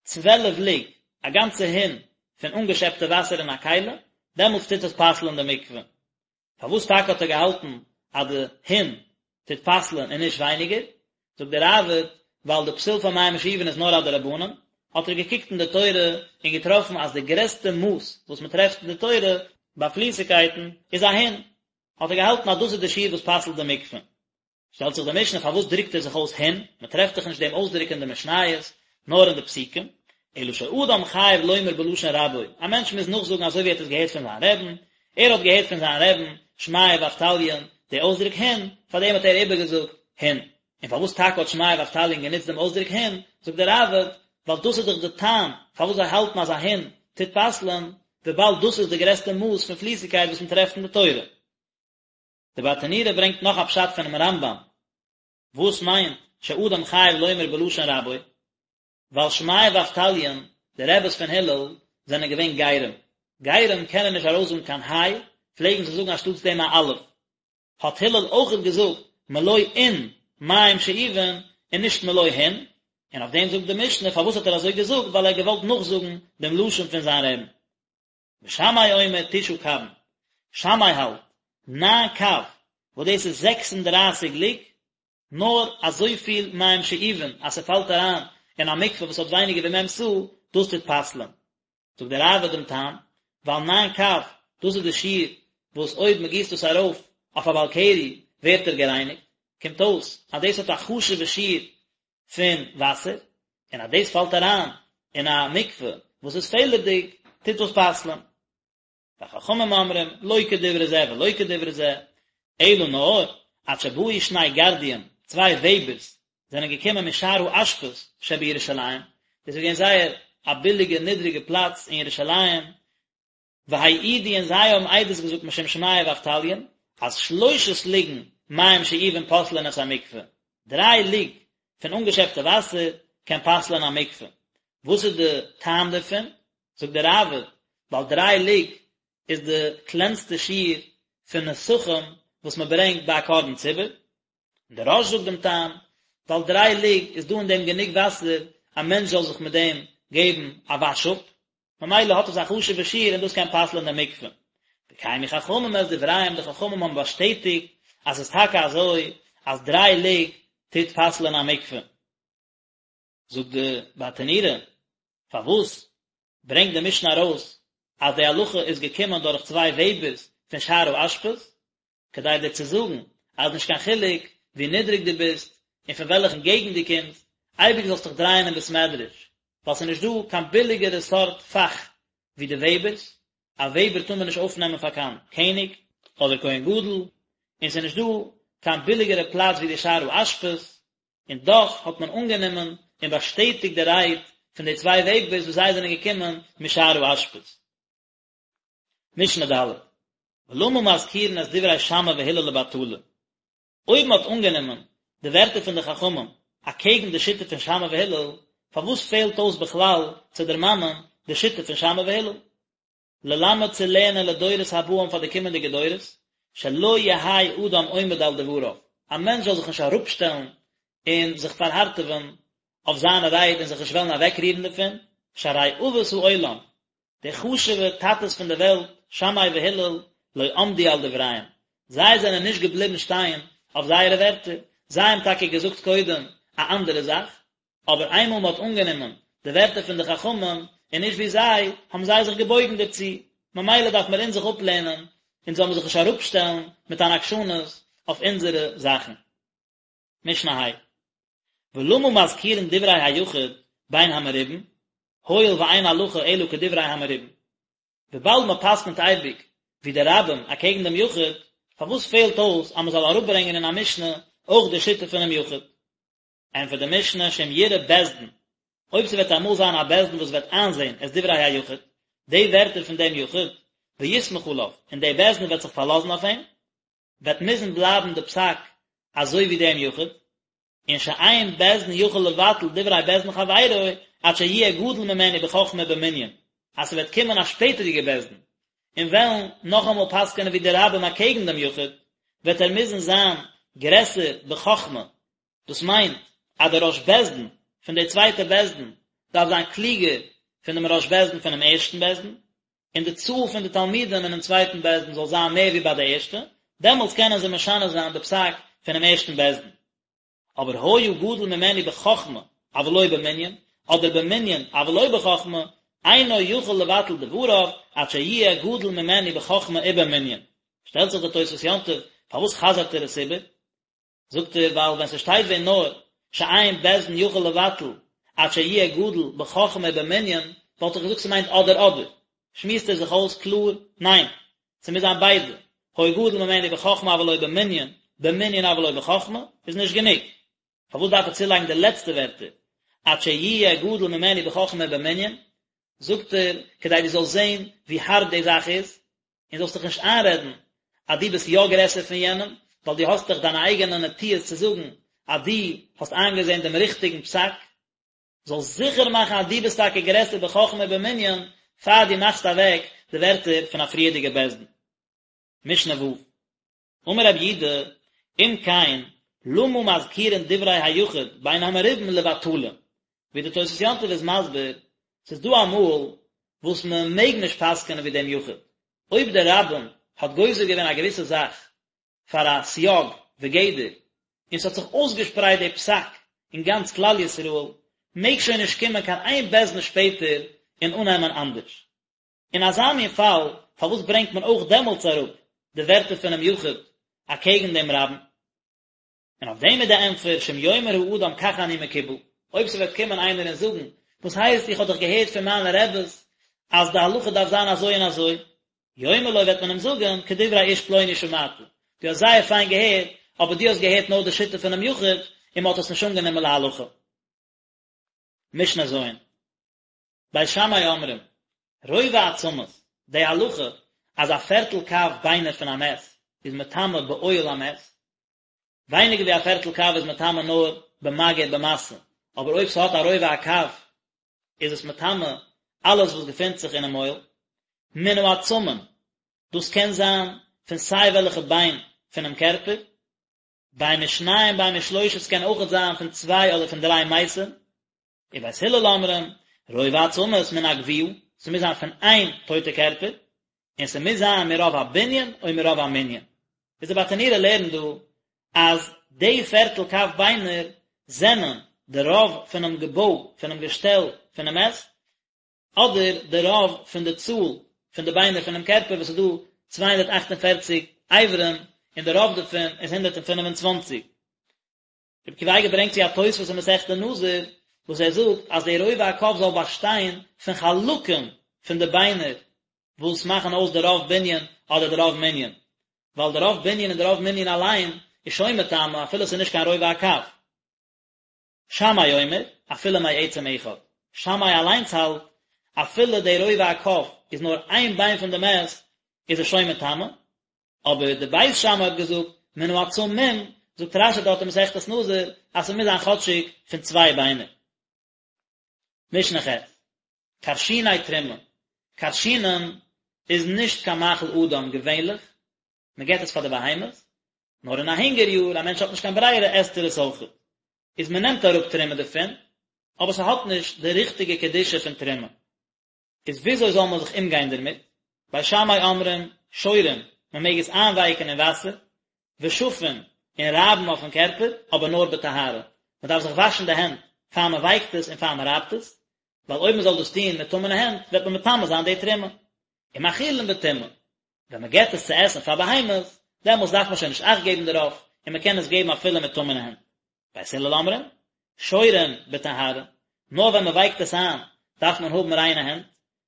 צוועלף לוג, א גאנצע הין, פון אנגעשעפטע וואסער אין א כלי, דעמאלטס טוט עס פסל'ן די מקווה. פארוואס טאקע האט ער געהאלטן אז די הין טוט פסל'ן און נישט ווייניגער? זאגט דער ראב"ד, ווייל די פסול פאר מים שאובין איז נאר א דרבנן, האט ער געקוקט אין די תורה און געטראפן אז די גרעסטע מאס וואס מען טרעפט אין די תורה ביי פליסיגקייטן איז א הין, האט ער געהאלטן אז דאס איז די שיעור וואס פסל'ט די מקווה. שטעלט זיך די משנה פארוואס דרוקט ער זיך אויס הין, מען טרעפט דאך נישט דעם אויסדרוק אין די משניות, נאר אין די פסוקים, אלא שאדם חייב לומר בלשון רבו, א מענטש מוז נאכזאגן אזוי ווי ער האט עס געהערט פון זיין רעבן, ער האט געהערט פון זיין רעבן, שמעיה ואבטליון, די אויסדרוק הין, פאר דעם האט ער איבערגעזאגט הין. און פארוואס טאקע האט שמעיה ואבטליון גענוצט דעם אויסדרוק הין, זאגט דער ראב"ד, ווייל דאס איז דאך די טעם פארוואס זיי האלטן אז א הין טוט פסל'ען, וויבאלד דאס איז די גרעסטע מאס פון פליסיגקייט וואס מען טרעפט אין די תורה. די ברטנורא ברענגט נאך א פשט פונעם רמב"ם, וואס מיינט שאדם חייב לומר בלשון רבו, ווייל שמעיה ואבטליון, די רעבעס פון הלל, זענען געווען גרים. גרים קענען נישט ארויסזאגן קיין היי, פלעגן זיי זאגן אנשטאטס דעם א אלף. האט הלל אויכעט געזאגט מלא אין מים שאובין און נישט מלא הין, און אויף דעם זאגט די משנה פארוואס האט ער אזוי געזאגט ווייל ער האט געוואלט נאכזאגן דעם לשון פון זיין רעבן. ושמאי אומר תשעה קבין, שמאי האלט, ניין קב, וואס דאס איז זעקס און דרייסיג לוג. נאר אזויפיל מים שאובין אז ס'פאלט אריין אין א מקווה וואס האט ווייניגער ווי מ' סאה, דאס טוט פסל'ען. זאגט דער ראב"ד דעם טעם, ווייל ניין קב, דאס איז די שיעור וואס אויב מען גיסט דאס ארויף אויף א בעל קרי ווערט ער גערייניגט, קומט אויס אז דאס האט א חשוב'ע שיעור פון וואסער, און אז דאס פאלט אריין אין א מקווה וואס איז פעלערדיג, טוט דאס פסל'ען. וחכמים אומרים, לא כדברי זה ולא כדברי זה, אלא נאר, עד שבאו שני גרדיים, צוויי וועבערס, זענען געקומען משער האשפות שבירושלים, דאס איז געווען זייער א ביליגע נידריגע פלאץ אין ירושלים, והעידו און זיי האבן עדות געזאגט משום שמעיה ואבטליון, אז שלושת לוגין מים שאובין פוסלין את המקווה, דריי לוג פון אנגעשעפטע וואסער קען פסל'ען א מקווה. וואס איז די טעם דערפון? זאגט דער ראב"ד, ווייל דריי לוג איז די קלענסטע שיעור פון נסכים וואס מען ברענגט ביי א קרבן ציבור, און דער רא"ש זאגט דעם טעם, ווייל דריי לוג איז דא אין דעם גענוג וואסער א מענטש זאל זיך מיט דעם געבן א וואש אפ, ממילא האט עס א חשוב'ע שיעור און דאס קען פסל'ען די מקווה. וקיימו חכמים את דבריהם, די חכמים האבן באשטעטיגט אז עס איז טאקע אזוי אז דריי לוג טוט פסל'ען א מקווה. זאגט די ברטנורא, פארוואס ברענגט די משנה ארויס אז די הלכה איז געקומען דורך צוויי וועבערס פון שער האשפות, כדי דיר צו זאגן אז נישט קיין חילוק ווי נידריג דו ביסט און פון וועלכן געגנט דו קומסט, אייביג זאלסט דיך דרייען אין בית מדרש, ווייל ס'איז נישט דא קיין ביליגערע סארט פאך ווי די וועבערס, א וועבער טאר מען נישט אויפנעמען פאר קיין קעניג אדער כהן גדול, און ס'איז נישט דא קיין ביליגערע פלאץ ווי די שער האשפות, און דאך האט מען אנגענומען און באשטעטיגט די רייד פון די צוויי וועבערס וואס זיי זענען געקומען משער האשפות. משנה ד', ולמה מזכירין את דברי שמאי והלל לבטלה? אויב מען האט אנגענומען די ווערטער פון די חכמים אקעגן די שיטה פון שמאי והלל, פארוואס פעלט אויס בכלל צו דערמאנען די שיטה פון שמאי והלל? ללמד צו לערנען לדורות הבאים פאר די קומענדיגע דורות, שלא יהא אדם עומד על דבריו, א מענטש זאל זיך נישט אראפשטעלן און זיך פארהארטעווען אויף זיינע רייד און זיך נישט וועלן אוועקרירן דערפון, שהרי אבות העולם, די חשוב'ע טאטעס פון די וועלט, שמאי והלל, לא עמדו על דבריהם, זיי זענען נישט געבליבן שטיין אויף זייערע ווערטער, זיי האבן טאקע געזאגט קודם א אנדערע זאך, אבער איינמאל מען האט אנגענומען די ווערטער פון די חכמים און נישט ווי זיי, האבן זיי זיך געבויגן דערצו, ממילא דארף מיר אונז זיך אפלערנען, אונז זאל מען זיך נישט אראפשטעלן מיט אן עקשנות אויף אונזערע זאכן. משנה ה'. ולמה מזכירין דברי היחיד בין המרובין, הואיל ואין הלכה אלא כדברי המרובין. וויבאלד מען פסק'נט אייביג ווי די רבים אקעגן דעם יחיד, פארוואס פעלט אויס אז מען זאל אראפברענגען אין א משנה אויך די שיטה פונעם יחיד? ענטפערט די משנה שאם יראה בית דין, אויב ס'וועט אמאל זיין א בית דין וואס וועט איינזען את דברי היחיד, די ווערטער פון דעם יחיד, ויסמוך עליו, און דער בית דין וועט זיך פארלאזן אויף אים, וועט מוזן בלייבן די פסק אזוי ווי דעם יחיד, און שאין בית דין יכול לבטל דברי בית דין חברו עד שיהיה גדול ממנו בחכמה ובמנין, אז ס'וועט קומען א שפעטערדיגע בית דין און וועלן נאכאמאל פסק'ענען ווי די רבים אקעגן דעם יחיד, וועט ער מוזן זיין גרעסער בחכמה דאס מיינט אז דער ראש בית דין פון די צווייטע בית דין דארף זיין קלוגער פון דעם ראש בית דין פונעם ערשטן בית דין, און די צאל פון די תלמידים אינעם צווייטן בית דין זאל זיין מער ווי ביי די ערשטע, דעמאלטס קענען זיי משנה זיין די פסק פונעם ערשטן בית דין. אבער היה גדול ממנו בחכמה אבל לא במנין, אדער במנין אבל לא בחכמה, אינו יכול לבטל דבריו עד שיהיה גדול ממנו בחכמה ובמנין. שטעלט זיך די תוספות יום טוב, פארוואס חזר'ט ער עס איבער? זאגט ער ווייל ווען ס'שטייט ווען נאר שאין בית דין יכול לבטל עד שיהיה גדול בחכמה ובמנין וואלט איך געזאגט ס'מיינט אדער אדער, שמועסט ער זיך אויס קלאר ניין ס'מוז זיין ביידע, היה גדול ממנו בחכמה אבל לא במנין, במנין אבל לא בחכמה איז נישט גענוג, פארוואס דארף ער צולייגן די לעצטע ווערטער עד שיהיה גדול ממנו בחכמה ובמנין, זאגט ער כדי דו זאלסט זען ווי הארב די זאך איז, און זאלסט דיך נישט איינרעדן אז דו ביסט יא גרעסער פון יענעם, ווייל דו האסט דאך דיינע אייגענע נטיות צו זאגן אז דו האסט איינגעזען דעם ריכטיגן פסק, זאלסט זיכער מאכן אז דו ביסט טאקע גרעסער בחכמה ובמנין פאר דו מאכסט אוועק די ווערטער פון א פריערדיגע בית דין. משנה ו'. אמר רבי יהודה, אם כן, למה מזכירין דברי היחיד בין המרובין לבטלה? ווי די תוס' יום טוב איז מסביר, ס'איז דא אמאל וואס מען מעג נישט פסק'ענען ווי דעם יחיד, אויב דער רבים האט גוזר געווען א געוויסע זאך פאר א סייג וגדר, און ס'האט זיך אויסגעשפרייט די פסק אין גאנץ כלל ישראל, מעג שוין נישט קומען קיין איין בית דין שפעטער און אננעמען אנדערש. אין אזא מין פאל, פארוואס ברענגט מען אויך דעמאלטס אראפ די ווערטער פונעם יחיד אקעגן דעם רבים? און אויף דעם איז די ענטפער, שאם יאמר האדם כך אני מקובל, אויב ס'וועט קומען איינער און זאגן, וואס הייסט איך האב דאך געהערט פון מיינע רעבעס אז די הלכה דארף זיין אזוי און אזוי, יאמר לו וועט מען אים זאגן, כדברי איש פלוני שמעת, דו האסט זייער פיין געהערט, אבער דו האסט געהערט נאר די שיטה פונעם יחיד, און מ'האט עס נישט אנגענומען להלכה. משנה ז'. בית שמאי אומרים, רובע עצמות, די הלכה אז א פערטל קב ביינער פון א מת איז מטמא באוהל המת, ווייניגער ווי א פערטל קב איז מטמא נאר במגע ובמשא, אבער אויב ס'האט א רובע הקב איז עס מטמא אלעס וואס געפינט זיך אינעם אוהל. מן העצמים, דאס קען זיין פון סיי וועלכע ביין פונעם קערפער, בין משניים בין משלושה ס'קען אויכעט זיין פון צוויי אדער פון דריי מתים, ובית הלל אומרים, רובע עצמות מן הגויה, ס'מוז זיין פון איין טויטע קערפער, און ס'מוז זיין מרוב הבנין או מרוב המנין. איז די ברטנורא לערנט דא אז די פערטל קב ביינער זענען די רוב פונעם געבוי פונעם געשטעל פונעם מת, אדער די רוב פון די צאל פון די ביינער פונעם קערפער וואס איז דא 248 אברים און די רוב דערפון איז 125. רבי עקיבא אייגער ברענגט צו א תוספות אין מסכת נזיר וואס ער זאגט אז די רובע הקב זאל באשטיין פון חלקים פון די ביינער וואס מאכן אויס די רוב בנין אדער די רוב מנין, ווייל די רוב בנין און די רוב מנין אליין איז שוין מטמא אפילו עס איז נישט קיין רובע הקב. שמאי אומר, אפילו מעצם אחד. שמאי אליינס האלט, אפילו די רובע הקב איז נאר איין ביין פון די מת, איז עס שוין מטמא, אבער די בית שמאי האט געזאגט מן העצמים, זאגט רש"י דארט אין מסכת נזיר אז ס'מוז זיין כאטשיג פון צוויי ביינער. משנה ח', כרשיני תרומה, כרשינים איז נישט קיין מאכל אדם געווענליך, מען געבט עס פאר די בהמות, נאר אין א הונגער יאר, א מענטש האט נישט קיין ברירה עסט ער עס אויכעט, איז מען נעמט אראפ תרומה דערפון, אבער ס'האט נישט די ריכטיגע קדושה פון תרומה. איז וויאזוי זאל מען זיך אומגיין דערמיט? בית שמאי אומרים, שורין, מען מעג עס איינווייקן אין וואסער, ושפין, און רייבן אויפן קערפער, אבער נאר בטהרה. מען דארף זיך וואשן די הענט פאר מען ווייקט עס און פאר מען רייבט עס, ווייל אויב מען זאל דאס טון מיט טמא'נע הענט וועט מען מטמא זיין די תרומה. ומאכילין בטומאה, ווען מען געבט עס צו עסן פאר בהמות, דעמאלס דארף מען שוין נישט אכט געבן דערויף, און מען קען עס געבן אפילו מיט טמא'נע הענט. בית הלל אומרים, שורין בטהרה, נאר ווען מען ווייקט עס איין דארף מען האבן ריינע הענט,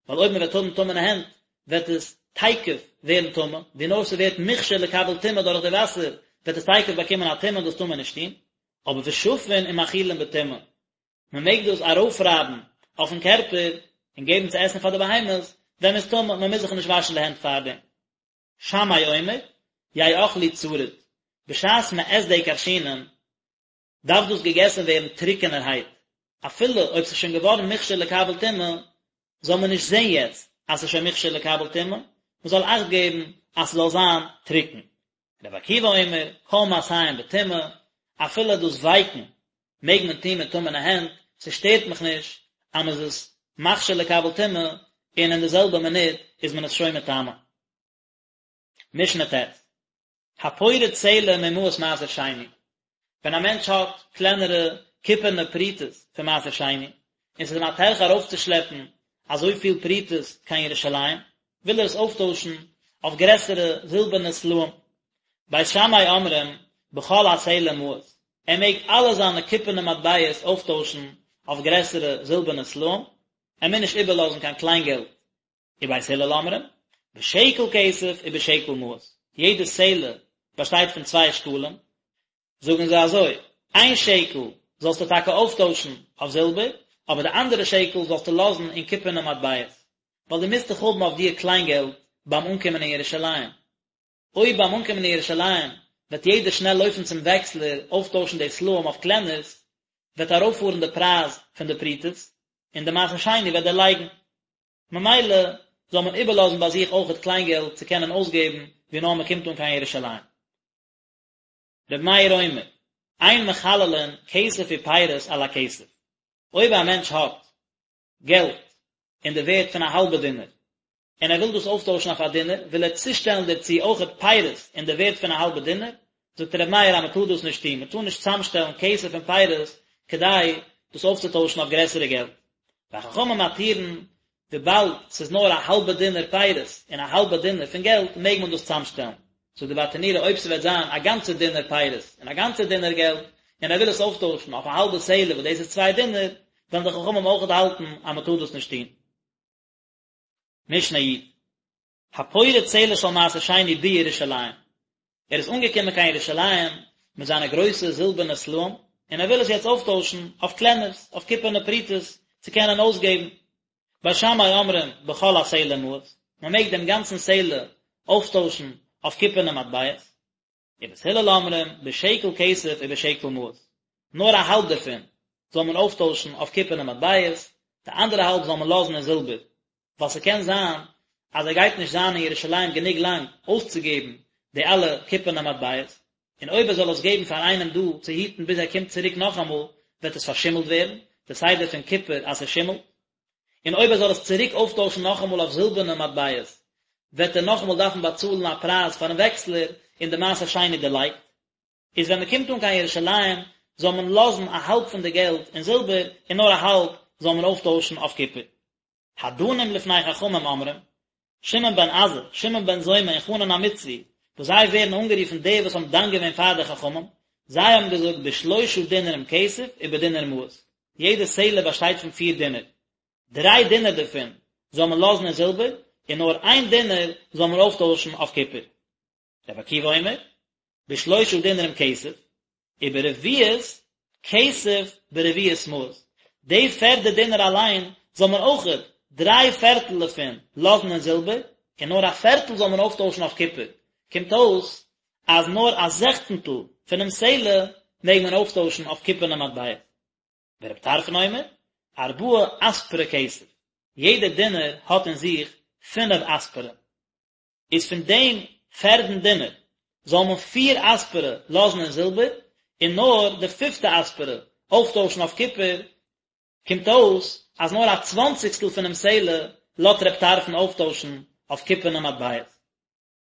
ווייל אויב מען וועט האבן טמא'נע הענט וועט עס תיכף ווערן טמא, ווי נאר ס'ווערט מוכשר לקבל טומאה דורך די וואסער וועט עס תיכף באקומען א טומאה און דאס טאר מען נישט טון, אבער ושפין ומאכילין בטומאה, מען מעג דאס ארויפרייבן אויפן קערפער און געבן צו עסן פאר די בהמות ווען מ'איז טמא, מען מוז זיך נישט וואשן די הענט פארדעם. שמאי אומר, יאכלו צריד, בשעת מען עסט די כרשינים דארף דאס געגעסן ווערן טרוקענערהייט, אפילו אויב ס'איז שוין געווארן מוכשר לקבל טומאה, זאל מען נישט זען יעצט אז ס'איז שוין מוכשר לקבל טומאה, מען זאל אכט געבן אז ס'זאל זיין טרוקן. רבי עקיבא אומר, כל מעשיהם בטומאה, אפילו דאס ווייקן מעג מען טון מיט טמא'נע הענט, ס'שטערט מיך נישט אז מ'איז עס מכשיר לקבל טומאה, און אין די זעלבע מינוט איז מען עס שוין מטמא. משנה ט', הפורט סלע ממעות מעשר שני, ווען א מענטש האט קלענערע קופערנע פרוטות פון מעשר שני, און ס'איז אים א טרחה ארויפצושלעפן אזויפיל פרוטות קיין ירושלים, וויל ער עס אויפטוישן אויף גרעסערע זילבערנע סלעים. בית שמאי אומרים, בכל הסלע מעות, ער מעג אלע זיינע קופערנע מטבעות אויפטוישן אויף גרעסערע זילבערנע סלעים, ער מוז נישט איבערלאזן קיין קליינגעלט. ובית הלל אומרים, בשקל כסף ובשקל מעות, יעדע סלע באשטייט פון צוויי שקלים, זאגן זיי אזוי, איין שקל זאלסטו טאקע אויפטוישן אויף זילבער, אבער די אנדערע שקל זאלסטו לאזן אין קופערנע מטבעות, ווייל דו מוזט דאך האבן אויף דיר קליינגעלט ביים אנקומען אין ירושלים. אויב ביים אנקומען אין ירושלים וועט יעדער שנעל לויפן צום וועקסלער אויפטוישן די סלעים אויף קלענערס, וועט ארויפפארן די פרייז פון די פרוטות, און די מעשר שני וועט דערלייגן. ממילא זאל מען איבערלאזן ביי זיך אויכעט קליינגעלט צו קענען אויסגעבן ווי נאר מען קומט אן קיין ירושלים. רבי מאיר אומר, אין מחללין כסף ופירות על הכסף, אויב א מענטש האט געלט אין די ווערט פון א האלבע דינר, און ער וויל דאס אויפטוישן אויף א דינר, וויל ער צושטעלן דערצו אויכעט פירות אין די ווערט פון א האלבע דינר, זאגט ר' מאיר אז מען טאר דאס נישט טון, מען טאר נישט צאמשטעלן כסף און פירות כדי דאס אויפצוטוישן אויף גרעסערע געלט. וחכמים מתירין, וויבאלד ס'איז נאר א האלבע דינר פירות און א האלבע דינר פון געלט מעג מען דאס צאמשטעלן. זאגט די ברטנורא אויב ס'וועט זיין א גאנצע דינר פירות און א גאנצע דינר געלט און ער וויל עס אויפטוישן אויף א האלבע סלע וואס דאס איז צוויי דינר, וועלן די חכמים אויכעט האלטן אז מען טאר דאס נישט טון. משנה י'. הפורט סלע של מעשר שני בירושלים, ער איז אנגעקומען קיין ירושלים מיט זיינע גרויסע זילבערנע סלעים, און ער וויל עס יעצט אויפטוישן אויף קלענערס, אויף קופערנע פרוטות, צו קענען אויסגעבן. בית שמאי אומרים בכל הסלע מעות, מען מעג דעם גאנצן סלע אויפטוישן אויף קופערנע מטבעות. ובית הלל אומרים בשקל כסף ובשקל מעות, נאר א האלב דערפון זאל מען אויפטוישן אויף קופערנע מטבעות, די אנדערע האלב זאל מען לאזן אין זילבער, ווייל ס'קען זיין אז ער גייט נישט זיין אין ירושלים גענוג לאנג אויסצוגעבן די אלע קופערנע מטבעות, און אויב ער זאל עס געבן פאר איינעם דא צו היטן ביז ער קומט צוריק נאכאמאל וועט עס פארשימלט ווערן, די סדר פון קופער אז ס'שימלט. און אויב ער זאל עס צוריק אויפטוישן נאכאמאל אויף זילבערנע מטבעות, וועט ער נאכאמאל דארפן באצאלן א פרייז פארן וועקסלער, און די מעשר שני דערלייגט. איז ווען מען קומט אן קיין ירושלים, זאל מען לאזן א האלב פון די געלט אין זילבער, און נאר א האלב זאל מען אויפטוישן אויף קופער. הדנים לפני חכמים אומרים, שמעון בן עזאי, שמעון בן זומא און חנן המצרי, וואס זיי ווערן אנגערופן די וואס האבן דן געווען פאר די חכמים, זיי האבן געזאגט בשלושה דינרים כסף ובדינר מעות, יעדע סלע באשטייט פון פיר דינר, דריי דינר דערפון זאל מען לאזן אין זילבער, און נאר איין דינר זאל מען אויפטוישן אויף קופער. רבי עקיבא אומר, בשלושה דינרים כסף, וברביעית כסף ברביעית מעות, די פערדע דינר אליין זאל מען אויכעט דריי פערטל דערפון לאזן אין זילבער, און נאר א פערטל זאל מען אויפטוישן אויף קופער, קומט אויס אז נאר א זעכצנטל פונעם סלע מעג מען אויפטוישן אויף קופערנע מטבע. ורבי טרפון אומר, ארבעה אספרי כסף, יעדע דינר האט אין זיך פינף אספרי. איז פון דעם פערדן דינר זאל מען פיר אספרי לאזן אין זילבער, און נאר די פיפטע אספרי אויפטוישן אויף קופער, קומט אויס אז נאר א צוואנציגסטל פונעם סלע לאזט רב טרפון אויפטוישן אויף קופערנע מטבעות.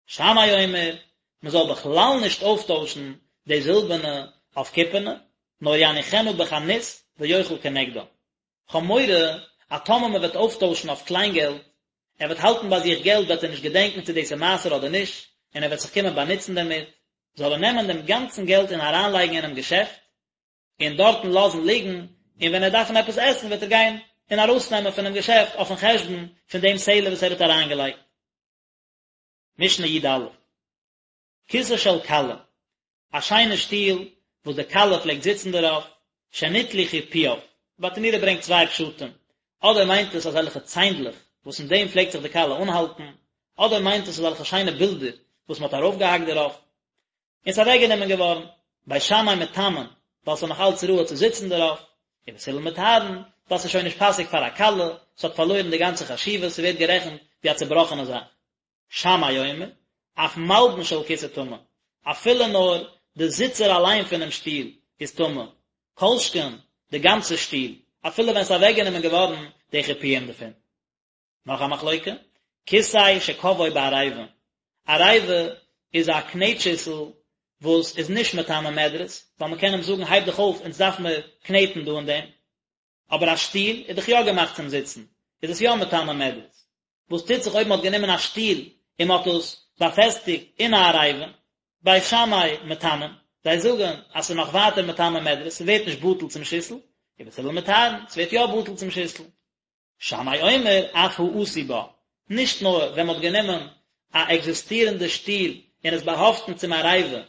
שמאי אומר, מען זאל בכלל נישט אויפטוישן די זילבערנע אויף קופערנע, נאר יניחנה בחנות ויאכל כנגדה. כ'האב מורא אז טאמער מען וועט אויפטוישן אויף קליינגעלט, ער וועט האלטן ביי זיך געלט וועט ער נישט געדענקן צו דאס איז מעשר אדער נישט, און ער וועט זיך קומען באנוצן דערמיט, זאל ער נעמען דעם גאנצן געלט און אריינלייגן אינעם געשעפט, און דארטן לאזן ליגן, און ווען ער וועט דארפן עפעס עסן וועט ער גיין און ארויסנעמען פונעם געשעפט אויפן חשבון פון דעם סלע וואס ער האט אריינגעלייגט. משנה י א. כסא של כלה, א שיינע שטול וואס די כלה פלעגט זיצן דערויף, שניטלו חיפויו, ברטנורא ברענגט צוויי פשטים, אדער מיינט עס אזעלכע ציינדלעך וואס אין דעם פלעגט זיך די כלה אנהאלטן, אדער מיינט עס אזעלכע שיינע בילדער וואס מען האט ארויפגעהאקט דערויף, און ס'איז אוועקגענומען געווארן, בית שמאי מטמאין, ווייל ס'איז נאך אלץ ראוי צו זיצן דערויף, און בית הלל מטהרין, ווייל ס'איז שוין נישט פאסיג פאר א כלה, ס'האט פארלוירן די גאנצע חשיבות, ס'ווערט גערעכנט ווי א צובראכענע זאך. שמאי אומר, אף מלבן של כסא טמא, אפילו נאר די זיצער אליין פונעם שטול איז טמא, כל שכן די גאנצע שטול, אפילו ווען ס'איז אוועקגענומען געווארן די חיפויים דערפון. נאך א מחלוקה, כסא שקבעו בעריבה, עריבה איז א קנעט שיסל וואס איז נישט מטמא מדרס, ווייל מ'קען אים זאגן הייב דיך אויף אונז דארף מיר קנעטן דא אין דעם, אבער א שטול איז דאך יא געמאכט צום זיצן, איז עס יא מטמא מדרס. וואס טוט זיך אויב מען האט גענומען א שטול און מען האט עס באפעסטיגט אין א עריבה? בית שמאי מטמאין, זיי זאגן אז ס'איז נאך ווייטער מטמא מדרס, ס'ווערט נישט בטל צום שיסל, ובית הלל מטהרין, ס'ווערט יא בטל צום שיסל. שמאי אומר אף העשוי בה, נישט נאר ווען מען האט גענומען א עקזיסטירענדע שטול און עס באהאפטן צום עריבה,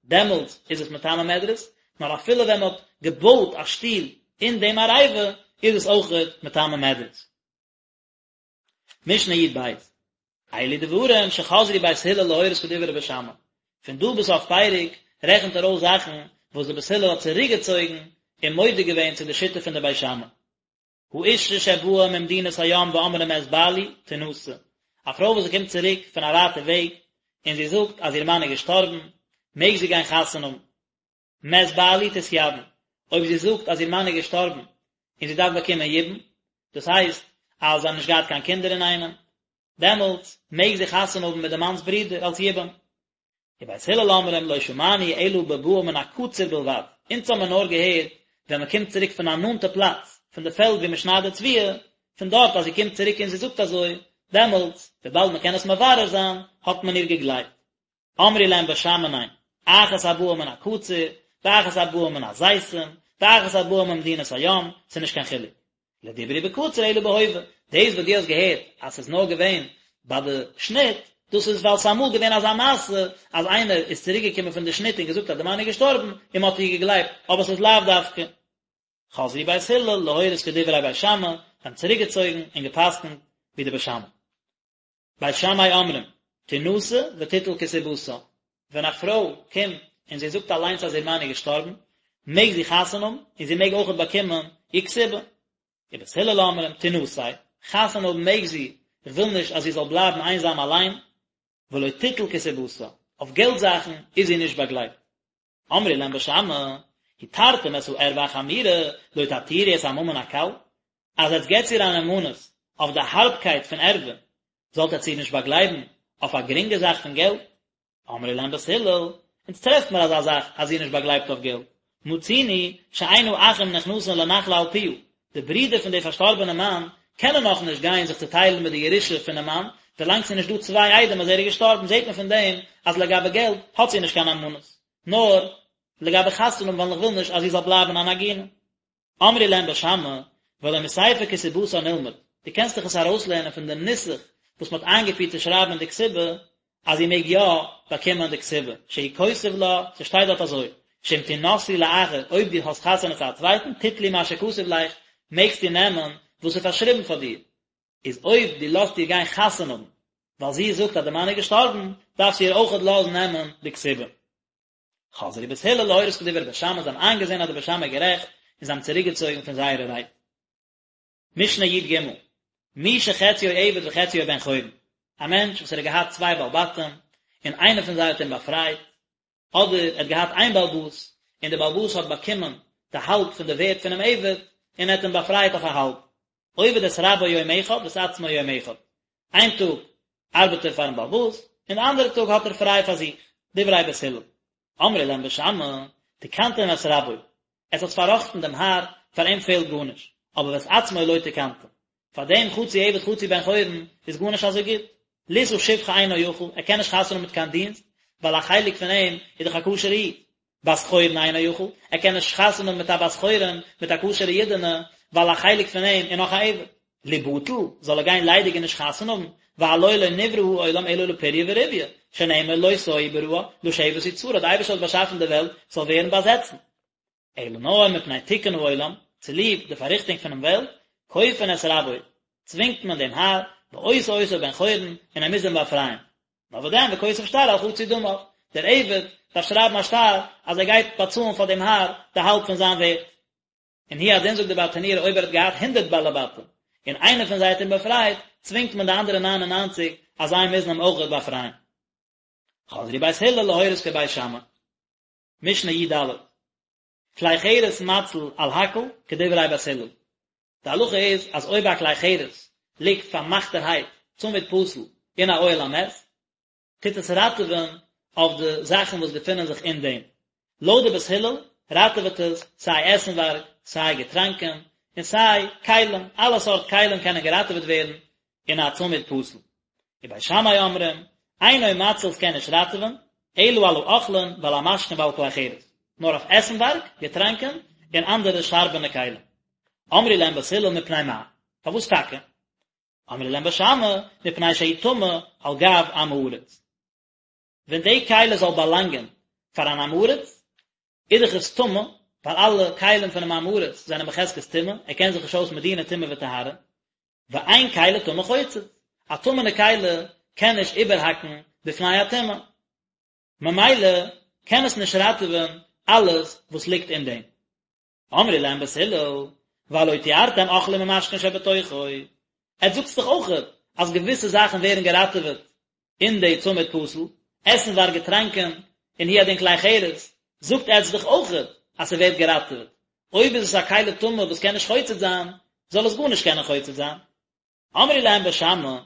דעמאלטס איז עס מטמא מדרס, נאר אפילו ווען מען האט געבויט א שטול אין דעם עריבה איז עס אויכעט מטמא מדרס. משנה י ב, אלו דברים שחזרו בית הלל להורות כדברי בית שמאי, פון דא ביז סוף פרק רעכנט ער אויס זאכן וואס די בית הלל האט צוריקגעצויגן און מודה געווען צו די שיטה פון די בית שמאי. האשה שבאה ממדינת הים ואמרה מת בעלי, תנשא, א פרוי וואס זי קומט צוריק פון א ווייטע וועג און זי זאגט אז איר מאן איז געשטארבן, מעג זי גיין חתונה האבן. מת בעלי תתייבם, אויב זי זאגט אז איר מאן איז געשטארבן און זי דארף באקומען יבום, דאס הייסט אז זיי האבן נישט געהאט קיין קינדער אינאיינעם, דעמאלטס מעג זי חתונה האבן מיט די מאנ'ס ברודער אלס יבום. ובית הלל אומרים לא שמענו אלא בבאה מן הקציר בלבד, אונז האמיר נאר געהערט ווען מען קומט צוריק פון א נאנטע פלאץ, פון די פעלד ווי מען שניידט די תבואה, פון דארט אז זי קומט צוריק און זי זאגט אזוי, דעמאלטס, וויבאלד מען קען עס מברר זיין, האט מען איר געגלייבט. אמרו להם בית שמאי ניין, אחת הבאה מן הקציר, ואחת הבאה מן הזיתים, ואחת הבאה ממדינת הים, ס'איז נישט קיין חילוק. לא דברו בקציר אלא בהווה, דאס וואס דו האסט געהערט אז ס'איז נאר געווען ביי די שניט, דאס איז ווייל ס'איז אמאל געווען אזא מעשה אז איינער איז צוריק געקומען פון די שניט און געזאגט אז די מאן איז געשטארבן און מ'האט איר געגלייבט, אבער ס'איז לאו דווקא. חזרו בית הלל להורות כדברי בית שמאי, זיי האבן צוריק געצויגן און גע'פסק'נט ווי די בית שמאי. בית שמאי אומרים, תנשא ותיטול כתובתה, ווען א פרוי קומט און זי זאגט אליינס אז איר מאן איז געשטארבן, מעג זי חתונה האבן און זי מעג אויכעט באקומען איר כתובה. ובית הלל אומרים, תנשא, חתונה האבן מעג זי, איך וויל נישט אז זי זאל בלייבן איינזאם אליין, ולא תיטול כתובתה, אויף געלט זאכן איז זי נישט באגלייבט. אמרו להם בית שמאי, התרתם את הערוה החמורה, לא תתירו את הממון הקל? אז עטס געטס איר א נאמנות אויף די הארבקייט פון ערוה, זאלט עטס איר נישט באגלייבן אויף א גרינגע זאך פון געלט? אמרו להם בית הלל, אונז טרעפט מיר אזא זאך אז זי איז נישט באגלייבט אויף געלט, מצינו שאין האחים נכנסין לנחלה על פיה, די ברידער פון די פארשטארבענע מאן קענען נאך נישט גיין זיך צוטיילן מיט די ירושה פונעם מאן, ווילאנג ס'איז נישט דא צוויי עדים אז ער איז געשטארבן זעט מען פון דעם אז לגבי געלט האט זי נישט קיין נאמנות, נאר לגבי חתונה האבן ווייל איך וויל נישט אז זי זאל בלייבן אן עגונה. אמרו להם בית שמאי, והלא מספר כתובתה נלמד, דו קענסט דאך עס ארויסלערנען פון די נוסח וואס מ'האט איינגעפירט צו שרייבן אין די כתובה, אז זי מעג יא באקומען די כתובה, שהוא כותב לה, ס'שטייט דארט אזוי, שאם תנשאי לאחר, אויב דו האסט חתונה צו א צווייטן, תטלי מה שכתוב לך, מעגסטו נעמען וואס איז פארשריבן פאר דיר, איז אויב דו לאזט איר גיין חתונה האבן, ווייל זי זאגט אז די מאן איז געשטארבן, דארפסטו איר אויכעט לאזן נעמען די כתובה. חזרו בית הלל להורות כדברי בית שמאי, זיי האבן איינגעזען אז די בית שמאי איז גערעכט, און זיי האבן צוריקגעצויגן פון זייערע רייד. משנה י"ג, מי שחציו עבד וחציו בן חורין, א מענטש וואס ער האט געהאט צוויי בעל בתים, און איינער פון זיי האט אים באפרייט, אדער ער האט געהאט איין בעל הבית, און דער בעל הבית האט באקומען די האלב פון די ווערט פונעם עבד, און ער האט אים באפרייט אויף א האלב. עובד את רבו יום אחד ואת עצמו יום אחד, איין טאג ארבעט ער פארן בעל הבית, און די אנדערע טאג האט ער פריי פאר זיך, דברי בית הלל. אמרו להם בית שמאי, תיקנתם את רבו, עטס האטס פארראכטן דעם האר, פאר אים פעלט גארנישט, אבער ואת עצמו לא תיקנתם, פאר דעם חצי עבד חצי בן חורין איז גארנישט אזוי גוט, לישא שפחה אינו יכול, ער קען נישט חתונה האבן מיט קיין דינסט, ווייל א חלק פון אים איז דאך א כשר'ע איד, בת חורין אינו יכול, ער קען נישט חתונה האבן מיט א בת חורין, מיט א כשר'ע אידענע, ווייל א חלק פון אים איז נאך א עבד. ליבטל, זאל ער גיין ליידיג און נישט חתונה האבן, והלא לא נברא העולם אלא לפריה ורביה, שנאמר לא תוהו בראה, לשבת יצרה, די אייבערשטער האט באשאפן די וועלט ס'זאל ווערן באזעצן. אלא נאר מפני תיקון העולם, צוליב די פארריכטונג פונעם וועלט, כופין את רבו, צווינגט מען דעם האר, ועושה אותו בן חורין, און ער מוז אים באפרייען. נאר וואס דען וכותב שטר על חצי דמיו, דער עבד דארף שרייבן א שטר אז ער גייט באצאלן פאר דעם האר די האלב פון זיין ווערט. און הוא הדין זאגט די ברטנורא אויב ער האט געהאט הונדרעט בעלי בתים און איינער פון זיי האט אים באפרייט, צווינגט מען די אנדערע ניין און ניינציג אז זיי מוזן אים אויכעט באפרייען. חזרו בית הלל להורות כבית שמאי. משנה י"ד. כלי חרס מציל על הכל כדברי בית הלל. די הלכה איז אז אויב א כלי חרס ליגט פארמאכטערהייט צמיד פתיל אין א אוהל המת, טוט עס ראטעווען אויף די זאכן וואס געפינען זיך אין דעם. לויט די בית הלל ראטעוועט עס סיי עסנווארג, סיי געטראנקען, און סיי כלים, אלע סארט כלים קענען געראטעוועט ווערן אין א צמיד פתיל. ובית שמאי אומרים, אינו מציל ס'קען נישט ראטעווען, אלא על האוכלין ועל המשקין ועל כלי חרס, נאר אויף עסנווארג, געטראנקען, און אנדערע שארבענע כלים. אמרו להם בית הלל מפני מה? פארוואס טאקע? אמרו להם בית שמאי, מפני שהוא טמא על גב עם הארץ. ווען די כלי זאל באלאנגען פאר אן עם הארץ, איז דאך עס טמא, ווייל אלע כלים פונעם עם הארץ זענען בחזקת טומאה, ער קען זיך נישט אויס מיט דיני טומאה וטהרה, ואין כלי טמא חוצץ, א טמא'נע כלי קען נישט איבערהאקן בפני הטומאה, ממילא קען עס נישט ראטעווען אלעס וואס ליגט אין דעם. אמרו להם בית הלל, והלא טיהרתם אוכלים ומשקין שבתוכו, עטס זאגטס דאך אויכעט אז געוויסע זאכן ווערן געראטעוועט אין די צמיד פתיל, עסנווארג געטראנקען, און הוא הדין כלי חרס, זאגט עטס דאך אויכעט אז ס'ווערט געראטעוועט, אויב איז עס א כלי טמא וואס קען נישט חוצץ זיין, זאל עס גארנישט קענען חוצץ זיין. אמרו להם בית שמאי,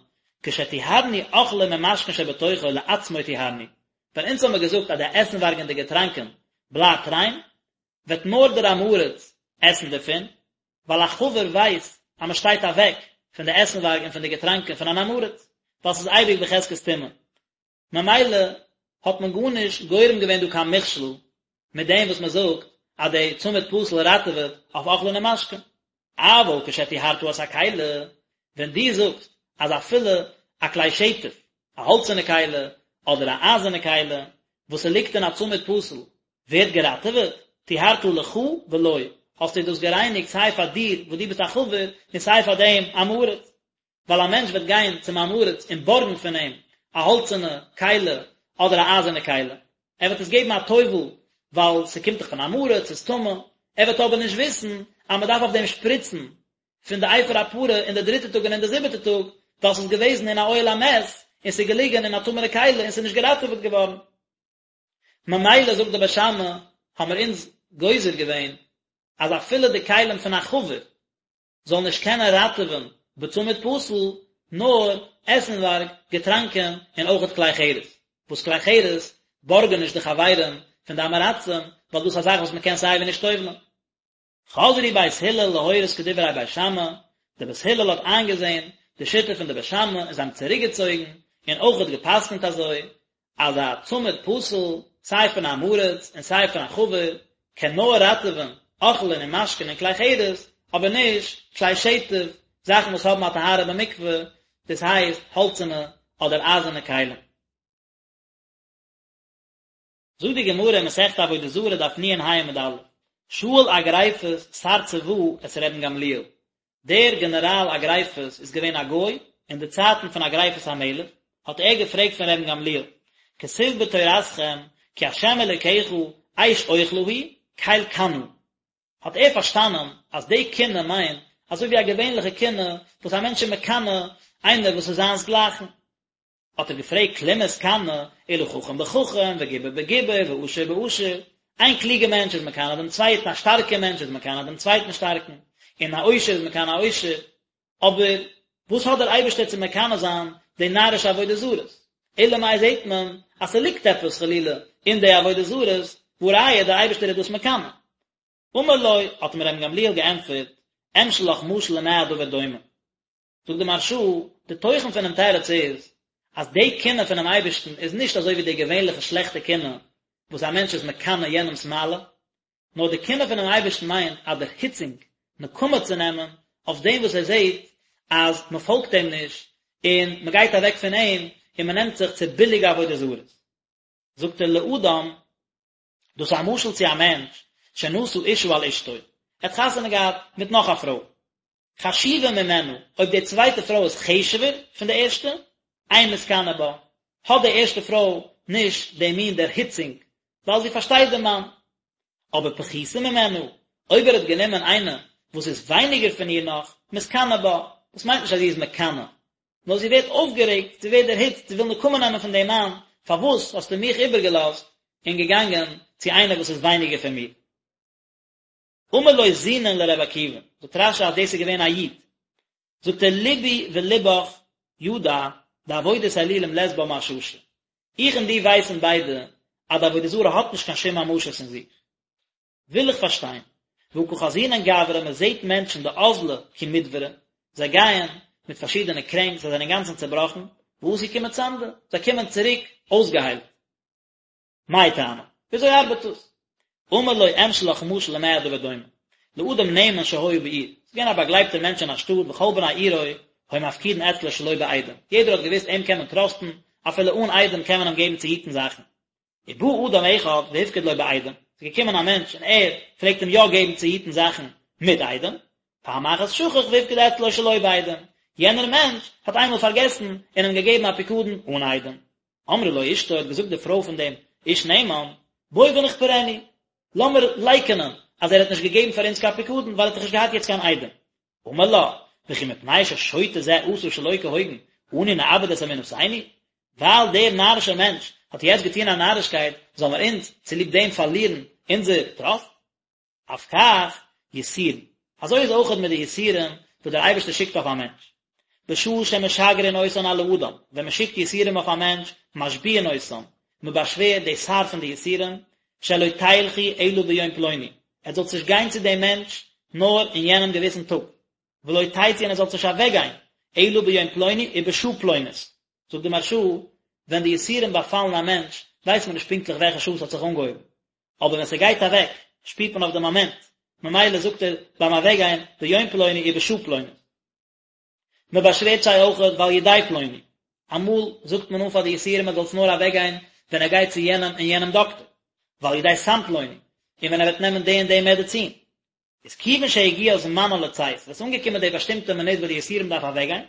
כשטיהרנו אוכלים ומשקין שבתוכו לעצמו טיהרנו. ווען אונז האמיר געזאגט אז די עסנווארג און די געטראנקען בלייבט ריין, וועט נאר דער עם הארץ עסן דערפון, ווייל א חבר ווייסט אז מען שטייט אוועק פון די עסנווארג און פון די געטראנקען פון אן עם הארץ, ווייל ס'איז אייביג בחזקת טומאה. ממילא האט מען גארנישט גורם געווען דא קיין מכשול מיט דעם וואס מען זאגט אז די צמיד פתיל ראטעוועט אויף אוכלין און משקין. אבל כשטיהרת את הכלי, ווען דו זאגסט אז אפילו א כלי שטף, א האלצערנע כלי אדער א אייזערנע כלי, וואס ס'ליגט אין א צמיד פתיל, ווערט געראטעוועט, טיהרת לך ולו, האסטו דאס גערייניגט סיי פאר דיר וואס דו ביסט א חבר און סיי פאר דעם עם הארץ. ווייל א מענטש וועט גיין צום עם הארץ און בארגן פון אים א האלצערנע כלי אדער א אייזערנע כלי, ער וועט עס געבן א טובל ווייל ס'קומט דאך פון עם הארץ, ס'איז טמא, ער וועט אבער נישט וויסן אז מ'דארף אויף דעם שפריצן פון די אפר הפרה אין די דריטע טאג און אין די זיבעטע טאג, ווייל ס'איז געוועזן אין א אוהל המת און ס'איז געליגן אין א טמא'נע כלי און ס'איז נישט געראטעוועט געווארן. ממילא זאגט די בית שמאי, האמיר אונז גוזר געווען אז אפילו די כלים פון א חבר זאל נישט קענען ראטעווען בצמיד פתיל, נאר עסנווארג, געטראנקען, און אויכעט כלי חרס, וואס כלי חרס בארגען נישט די חברים פון די עם הארצים, ווייל דאס איז א זאך וואס מען קען סייווי נישט טובל'ען. חזרו בית הלל להורות כדברי בית שמאי, די בית הלל האט איינגעזען די שיטה פון די בית שמאי און זיי האבן צוריקגעצויגן און אויכעט גע'פסק'נט אזוי, אז א צמיד פתיל, סיי פון עם הארץ און סיי פון א חבר, קען נאר ראטעווען אוכלין און משקין און כלי חרס, אבער נישט כלי שטף, זאכן וואס האבן א טהרה במקווה, דאס הייסט האלצערנע אדער אייזערנע כלים. זאגט די גמרא אין מסכת עבודה זרה דף נ"ה עמוד א', שאל אגריפס שר צבא את רבן גמליאל, דער גענעראל אגריפס איז געווען א גוי, אין די צייטן פון אגריפס המלך, האט ער געפרעגט פון רבן גמליאל, כתיב בתורתכם כי ה' אלוקיך אש אוכלה הוא, קל קנא. האט ער פארשטאנען אז די קנאה מיינט אזוי ווי א געווענליכע קנאה וואס א מענטש איז מקנא איינער וואס איז זיינס גלייכן. האט ער געפרעגט כלום מתקנא אלא חכם בחכם וגיבור בגיבור ועשיר בעשיר, איין קלוגער מענטש איז מקנא דעם צווייטן, א שטארקער מענטש איז מקנא דעם צווייטן שטארקן, און א עושר איז מקנא א עושר, אבער וואס האט דער אייבערשטער צו מקנא זיין די נארישע עבודה זרות? אלא מאי זעט מען אז ס'ליגט עפעס חלילה אין די עבודה זרות, והא ראיה דער אייבערשטער איז דאס מקנא. אמר לו, האט אים רבן גמליאל געענטפערט, אמשול לך משל למה הדבר דומה. זאגט די מהרש"א, די תוכן פונעם תירוץ איז, אז די קנאה פונעם אייבערשטן איז נישט אזוי ווי די געווענליכע שלעכטע קנאה וואס א מענטש איז מקנא יענעמ'ס מעלה, נאר די קנאה פונעם אייבערשטן מיינט א דערהיצונג, נקמה צו נעמען אויף דעם וואס ער זעט אז מען פאלגט אים נישט און מען גייט אוועק פון אים און מען נעמט זיך צו ביליגע עבודה זרות. זאגט ער לאדם, דאס איז א משל צו א מענטש שנשא אשה על אשתו, ער האט חתונה געהאט מיט נאך א פרוי, חשובה ממנה, אויב די צווייטע פרוי איז חשוב'ער פון די ערשטע, אין מתקנא בה, האט די ערשטע פרוי נישט די מין דערהיצונג, ווייל זי פארשטייט דעם מאן. אבער פחותה ממנה, אויב ער האט גענומען איינע וואס איז ווייניגער פון איר נאך, מתקנא בה, דאס מיינט נישט אז זי איז מקנא, נאר זי ווערט אויפגערעגט, זי ווערט דערהיצט, זי וויל נקמה נעמען פון דעם מאן, פארוואס האסטו מיך איבערגעלאזט און געגאנגען צו איינער וואס איז ווייניגער פון מיר? אמר לו זונין לר' עקיבא, זאגט רש"י אז דאס איז געווען א איד, זאגט ער לבי ולבך ידע דעבודת אלילים לית בה מששא, איך און דו ווייסן ביידע אז די עבודה זרה האט נישט קיין שום ממשות אין זיך. וויל איך פארשטיין, והא קא חזינן גברי מען זעט מענטשן דאזלי כי מדברי, זיי גייען מיט פארשידענע קרענק, זיי זענען אינגאנצן צעבראכן, ואתו כי מצמדי, זיי קומען צוריק אויסגעהיילט. מאי טעמא? וויאזוי ארבעט דאס? אמר לו אמשול לך משל למה הדבר דומה? לאדם נאמן שהיה בעיר, ס'איז געווען א באגלייבטער מענטש אין א שטאט וכל בני עירו היו מפקידין אצלו שלא בעדים, יעדער האט געוואוסט אים קען מען טראסטן, אפילו אן עדים קען מען אים געבן צו היטן זאכן. ובא אדם אחד והפקיד לו בעדים, ס'איז געקומען א מענטש און ער פלעגט אים יא געבן צו היטן זאכן מיט עדים, פעם אחת שכח והפקיד אצלו שלא בעדים, יענער מענטש האט איינמאל פארגעסן און אים געגעבן א פיקדון אן עדים. אמרה לו אשתו האט געזאגט די פרוי פון דעם איש נאמן, בוא ונכפרנו, לאמיר לייקענען אז ער האט נישט געגעבן פאר אונז קיין פיקדון ווייל ער האט דאך נישט געהאט יעצט קיין עדים. אמר לה, וכי מפני ששוטה זה עשה שלא כהוגן, אנו נאבד את אמונתנו? ווייל דער נארישער מענטש האט יעצט געטון א נארישקייט, זאלן מיר אונז צוליב דעם פארלירן אונזער טראסט? אף כך יסורין, אזוי איז אויכעט מיט די יסורים וואס דער אייבערשטער שיקט אויף א מענטש. בשעה שמשגרין אותן על האדם, ווען מען שיקט יסורים אויף א מענטש, משביעין אותם, מען באשווערט די שר פון די יסורים, שלא תלכו אלא ביום פלוני, עטס זאלטס נישט גיין צו דעם מענטש נאר אין יענעם געוויסן טאג, ולא תצאו און עטס זאלטס נישט אוועקגיין אלא ביום פלוני ובשעה פלונית, זאגט די מהרש"א, ווען די יסורים באפאלן א מענטש ווייסט מען נישט פונקטליך וועלכע שעה עס האט זיך אנגעהויבן, אבער ווען ס'גייט אוועק שפירט מען אויף די מאמענט, ממילא זאגט ער ביים אוועקגיין ביום פלוני ובשעה פלונית. מען באשווערט זיי אויכעט ועל ידי פלוני, אמאל זאגט מען אן פאר די יסורים ער זאל עס נאר אוועקגיין ווען ער גייט צו יענעם און יענעם דאקטער, ועל ידי סם פלוני, און ווען ער וועט נעמען די און די מעדעצין. איז כיוון שהגיע זמנן לצאת, ווען עס איז אנגעקומען די באשטימטע מינוט וואס די יסורים דארף אוועקגיין,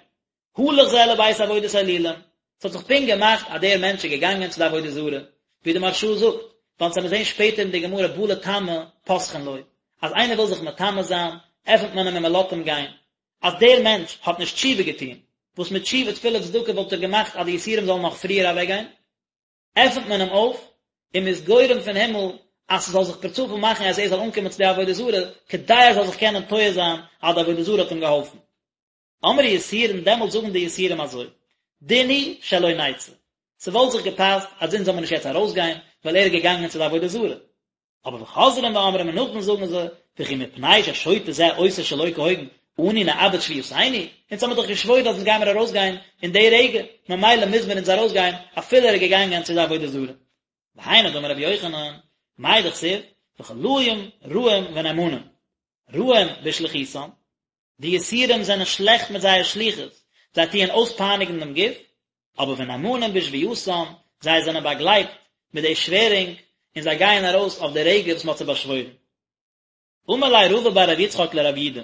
הלך זה לבית עבודת אלילים, עס האט זיך פונקט געמאכט אז דער מענטש איז געגאנגען צו די עבודה זרה, ווי די מהרש"א זאגט, ווייל אונז וועלן זען שפעטער אין די גמרא בא לטמא פותחין לו, אז איינער וויל זיך מטמא זיין, עפנט מען אים און מען לאזט אים גיין, אז דער מענטש האט נישט תשובה געטון, וואס מיט תשובה תפילה וצדקה וואלט ער געמאכט אז די יסורים זאלן נאך פריער אוועקגיין, עפנט מען אים אויף, און מ'איז גורם פון הימל אז ס'זאל זיך פערצופאל מאכן אז ער זאל אנקומען צו די עבודה זרה, כדי ער זאל זיך קענען טועה זיין אז די עבודה זרה האט אים געהאלפן. אמרו יסורין, דעמאלט זאגן די יסורים אזוי, דין הוא שלא נצא, ס'וואלט זיך געפאסט אז אונז זאל מען נישט יעצט ארויסגיין, ווייל ער איז געגאנגען צו די עבודה זרה. אבער וחוזרים ואומרים און נאכדעם זאגן זיי, וכי מפני ששוטה זה עושה שלא כהוגן, אנו נאבד שבועתנו, אונז האמיר דאך געשוואוירן אז אונז גיימיר ארויסגיין אין די רגע, ממילא מוז מיר אונז ארויסגיין אפילו ער איז געגאנגען צו די עבודה זרה. והיינו דאמר רבי יוחנן, מאי דכתיב, וחלאים רעים ונאמנים, רעים בשליחותם, די יסורים זענען שלעכט מיט זייער שליחות, זיי טוען אויספייניגן דעם גוף, אבער ונאמנים בשבועתם, זיי זענען באגלייבט מיט די שווערונג, און זיי גייען ארויס אויף די רגע וואס מען האט זיי באשוואוירן. אמר ליה רבא בר רב יצחק לרב יודא,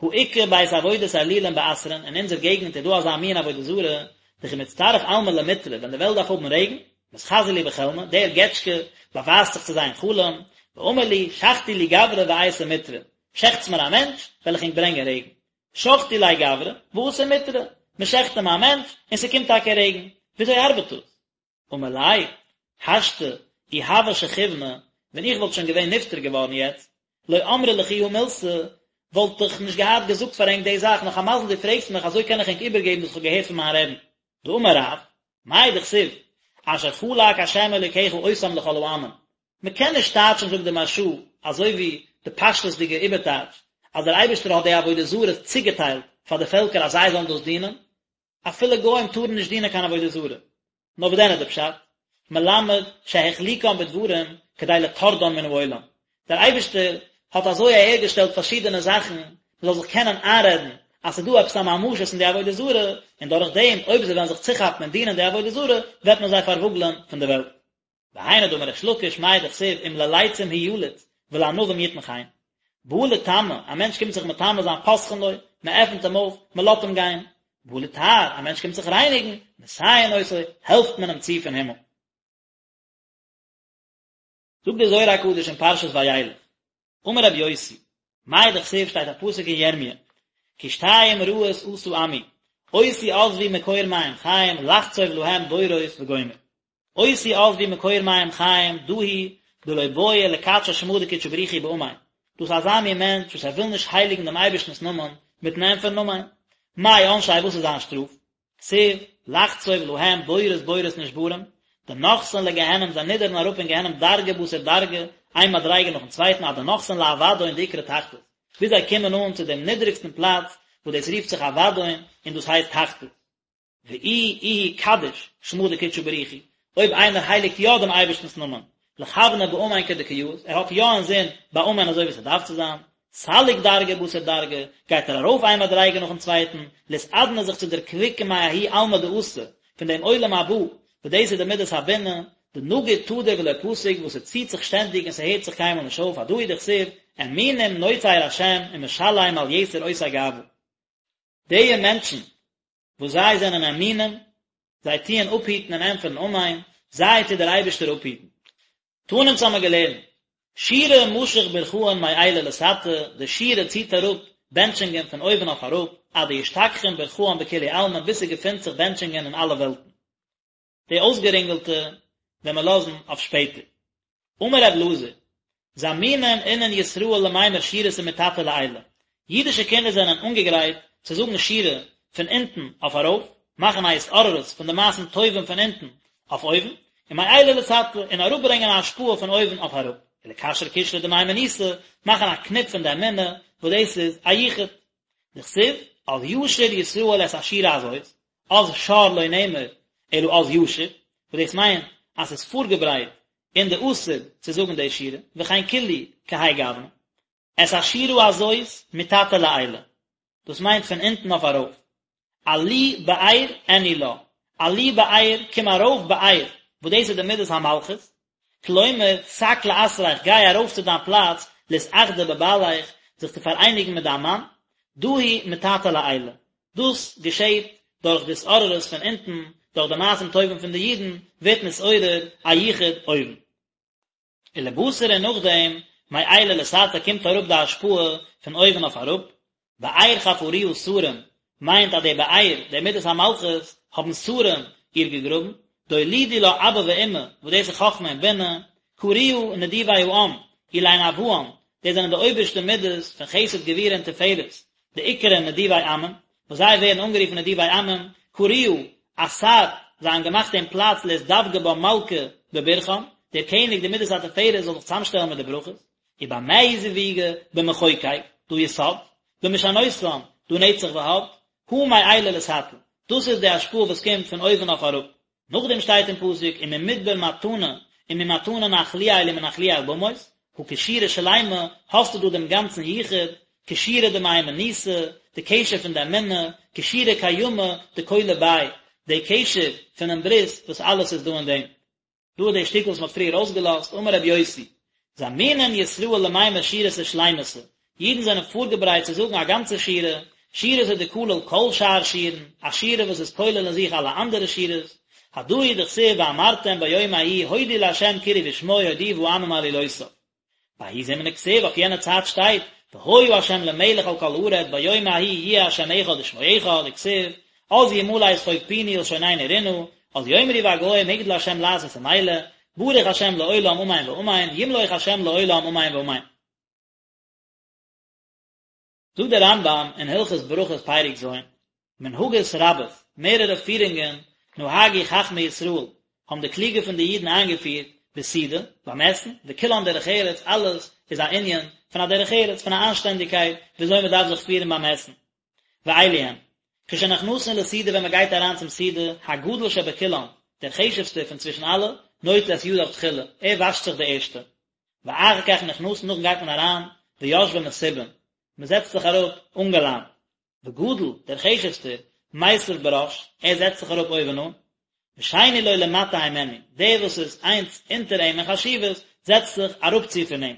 הא איכא בית עבודת אלילים באתרין, אין אונזער געגנט איז דא אזא מין עבודה זרה, דכי מצטריך עלמא למטרא, ווען די וועלט דארף האבן רעגן, מתחזי להו בחלמא, דער געטשקע באווייזט זיך צו זיי אין חלום, ואמר להו, שחטו לי גברא ואייתי מטרא, שעכטס מיר א מענטש, וועל איך ענק ברענגען רעגן. שחטו ליה גברא, ואתא מטרא, מען שעכט אים א מענטש, און ס'קומט טאקע רעגן. וויאזוי ארבעט דאס? אמר ליה, השתא, אי הוה שכיבנא, ווען איך וואלט שוין געווען נפטר געווארן יעצט, לא אמרי לכו הא מילתא, וואלט איך נישט געהאט געזאגט פאר ענק די זאך, נאך א מזל דו פרעגסט מיך, אזוי קען איך ענק איבערגעבן וואס איך האב געהערט פון מיין רעבן. דאמר רב, מאי דכתיב, אשר חלק ה' אלוקיך אותם לכל העמים, מען קען נישט טייטשן זאגט די מהרש"א אזוי ווי די פשטות'דיגע איבערטייטש אז דער אייבערשטער האט די עבודה זרות צוגעטיילט פאר די פעלקער אז זיי זאלן דאס דינען, אפילו גוים טארן נישט דינען קיין עבודה זרה. נאר וואס דען איז די פשט? מלמד שהחליקם בדברים כדי לטורדן מן העולם, דער אייבערשטער האט אזוי אהערגעשטעלט פארשידענע זאכן מען זאל זיך קענען איינרעדן אז ס'איז דא עפעס א ממשות אין די עבודה זרה, און דורך דעם אויב זיי וועלן זיך צוכאפן און דינען די עבודה זרה וועט מען זיי פארוואגלען פון די וועלט. והיינו דאמר ריש לקיש מאי דכתיב אם ללצים הוא יליץ ולענווים יתן חן. בא לטמא, א מענטש קומט זיך מטמא זיין פותחין לו, מען עפנט אים אויף, מען לאזט אים גיין. בא לטהר, א מענטש קומט זיך רייניגן, מסייעין אותו, העלפט מען אים צו פון הימל. זאגט דער זוהר הקדוש אין פרשת וילך, אמר רבי יוסי, מאי דכתיב שטייט א פסוק אין ירמיה, כי שתים רעות עשה עמי, אותי עזבו מקור מים חיים לחצוב להם בורות וגומר. אותי עזבו מקור מים חיים דא הוא דלא בעי לקדשא שמא דקודשא בריך הוא באמן, דאס איז אזא מין מענטש וואס ער וויל נישט הייליגן דעם אייבערשטנ'ס נאמען מיטן ענטפערן אמן. מאי עונשיה וואס איז זיין שטראף? כתיב, לחצוב להם בורות בורות נשברים, דנחתין לגיהנום זיי נידערן אראפ אין גיהנום דרגא בתר דרגא, איין מדריגה נאכן צווייטן עד דנחתין לאבדון דאקרי תחתית, ביז זיי קומען אן צו דעם נידריגסטן פלאץ וואס דאס רופט זיך אבדון און דאס הייסט תחתית. ואי איהו קדיש שמא דקודשא בריך הוא, אויב איינער הייליגט יא דעם אייבערשטנ'ס נאמען, לכווניה באמן כדקא יאות, ער האט יא אינזין ביי אמן אזוי ווי ס'דארף צו זיין, סליק דרגא בתר דרגא, גייט ער ארויף איין מדריגה נאכן צווייטן, לאתעדנא זיך צו דערקוויקן מההוא עלמא דאתי, פון דעם עולם הבא, וואס דאס איז די מידת הבינה, דנגיד תדיר ולא פסיק וואס ס'ציט זיך שטענדיג און ס'הערט זיך קיינמאל נישט אויף, הדא הוא דכתיב, אמונים נוצר השם ומשלם על יתר עושי גאוה. די מענטשן וואס זיי זענען אמונים, זיי טוען אפהיטן און ענטפערן אמן, זיי טוט דער אייבערשטער אפהיטן. תנא אונז האמיר געלערנט, שירה משך ברכאן מעילא לתתא, די שירה ציט אראפ בענטשונגען פון אויבן אויף אראפ, עד דאשתכחין ברכאן בכולהו עלמין ביז ס'געפינט זיך בענטשונגען אין אלע וועלטן. די אויסגערינגעלטע וועלן מיר לאזן אויף שפעטער. אמר ר' אלעזר, זמינין אינון ישראל למימר שירתא מתתא לעילא, אידישע קינדער זענען אנגעגרייט צו זאגן שירה פון אונטן אויף ארויף, מאכן א התעוררות פון די מעשים טובים פון אונטן אויף אויבן, ומעילא לתתא, און אראפברענגען א השפעה פון אויבן אויף אראפ, ולקשר קשרא דמהימנותא, מאכן א קניפ פון די אמונה, וואס דאס איז א יחוד. דכתיב, אז ישיר ישראל את השירה הזאת, אז שר לא נאמר, אלא אז ישיר, וואס דאס מיינט אז ס'איז פארגעברייט אין די עתיד צו זאגן די שירה, וכן כולהו כהאי גוונא. את השירה הזאת מתתא לעילא, דאס מיינט פון אונטן אויף ארויף. עלי באר ענו לה, עלי באר, קום ארויף באר, וואס דאס איז די מידת המלכות, כלומר, סק לאתריך, גיי ארויף צו דיין פלאץ, לאתאחדא בבעליך, זיך צו פאראייניגן מיט דיין מאן, דא הוא מתתא לעילא, דאס געשעט דורך די התעוררות פון אונטן, דורך די מעשים טובים פון די אידן, ווערט נתעורר א יחוד אויבן. ולבתר און נאכדעם, מעילא לתתא קומט אראפ די השפעה פון אויבן אויף אראפ, באר חפרוה שרים מיינט אז די באר, די מידת המלכות, האבן שרים איר געגראבן, דאולידו לה אבא ואמא, וואס דאס איז חכמה און בינה, קרוה נדיבי העם, אלין אבהן, דאס זענען די אויבערשטע מידות פון חסד גבורה און תפארת, דאיקרו נדיבי עמים, וואס זיי ווערן אנגערופן נדיבי עמים, קרוה אתר, זיי האבן געמאכט דעם פלאץ לאתדבקא בה מלכא בברכאן, דער קעניג די מידת התפארת זאל זיך צוזאמשטעלן מיט די ברכות, ובמה הוא זיווגא במחוקק, דהא יסוד, במשענותן, דהא נצח והוד, הא מעילא לתתא, דאס איז די השפעה וואס קומט פון אויבן אויף אראפ. נאכדעם שטייט אין פסוק וממדבר מתנה וממתנה נחליאל ומנחליאל במות, הא קשירה שלימה, האסטו דא דעם גאנצן יחוד, קשירה דמהימנותא, די קשר פון די אמונה, קשירה קיימא דכולא ביה, די קשר פונעם ברית וואס אלעס איז דא אין דעם. דא איז די שטיקל וואס מען האט פריער אויסגעלאזט, אמר רבי יוסי, זמינין ישראל למימר שירתא שלימתא, אידן זענען פארגעברייט צו זאגן א גאנצע שירה, שירתא דכליל כל שאר שירין, א שירה וואס איז כולל אין זיך אלע אנדערע שירות, הדא הוא דכתיב ואמרתם ביום ההוא הודו לה' קראו בשמו הודיעו בעמים עלילותיו. בההוא זמנא כתיב אויף יענע צייט שטייט והיה ה' למלך על כל הארץ ביום ההוא יהיה ה' אחד ושמו אחד וכתיב אז ימלא שחוק פינו ולשוננו רנה אז יאמרו בגוים הגדיל ה' לעשות עם אלה ברוך ה' לעולם אמן ואמן ימלוך ה' לעולם אמן ואמן. זאגט דער רמב"ם אין הלכות ברכות פרק ז', מנהגות רבות, מערערע פירונגען, נהגו חכמי ישראל, האבן די קלוגע פון די אידן איינגעפירט, בסעודה, ביים עסן, וכולן דרך ארץ, אלעס איז א ענין פון א דרך ארץ, פון א אנשטענדיגקייט, וויאזוי מען דארף זיך פירן ביים עסן. ואלו הן, כשנכנסין לסעודה ווען מען גייט אריין צום סעודה, הגדול שבכולן, דער חשוב'סטער פון צווישן אלע, נוטל את ידיו תחילה, ער וואשט זיך די ערשטע, ואחר כך נכנסין נאכדעם גייט מען אריין, ויושבין מסובין, מען זעצט זיך אראפ אנגעלאנט, וגדול, דער חשוב'סטער, מיסב בראש, ער זעצט זיך אראפ אויבן אן, ושני לו למטה הימנו, דער וואס איז איינס אונטער אים אין חשיבות, זעצט זיך אראפצו פון אים.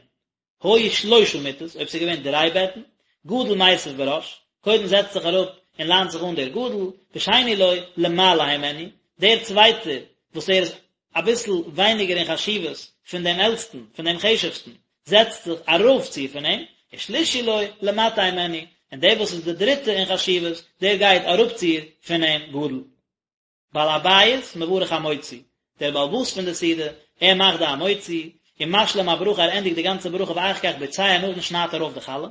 היו שלושה מיטות, אויב ס'איז געווען דריי בעטן, גדול מיסב בראש, קודם זעצט זיך אראפ און לאנט זיך אן דער גדול, ושני לו למעלה הימנו, דער צווייטער וואס ער איז אביסל ווייניגער אין חשיבות פון דעם עלטסטן, פון דעם חשוב'סטן, זעצט זיך ארויפצו פון אים, ושלישי לו למטה הימנו, און דער וואס איז דער דריטע אין חשיבות, דער גייט אראפצו פון אים גדול. בעל הבית מברך המוציא, דער בעל הבית פון די סעודה, ער מאכט די המוציא, ומשלים הברכה ער ענדיגט די גאנצע ברכה ואחר כך בוצע נאכדעם שניידט ער אויף די חלה.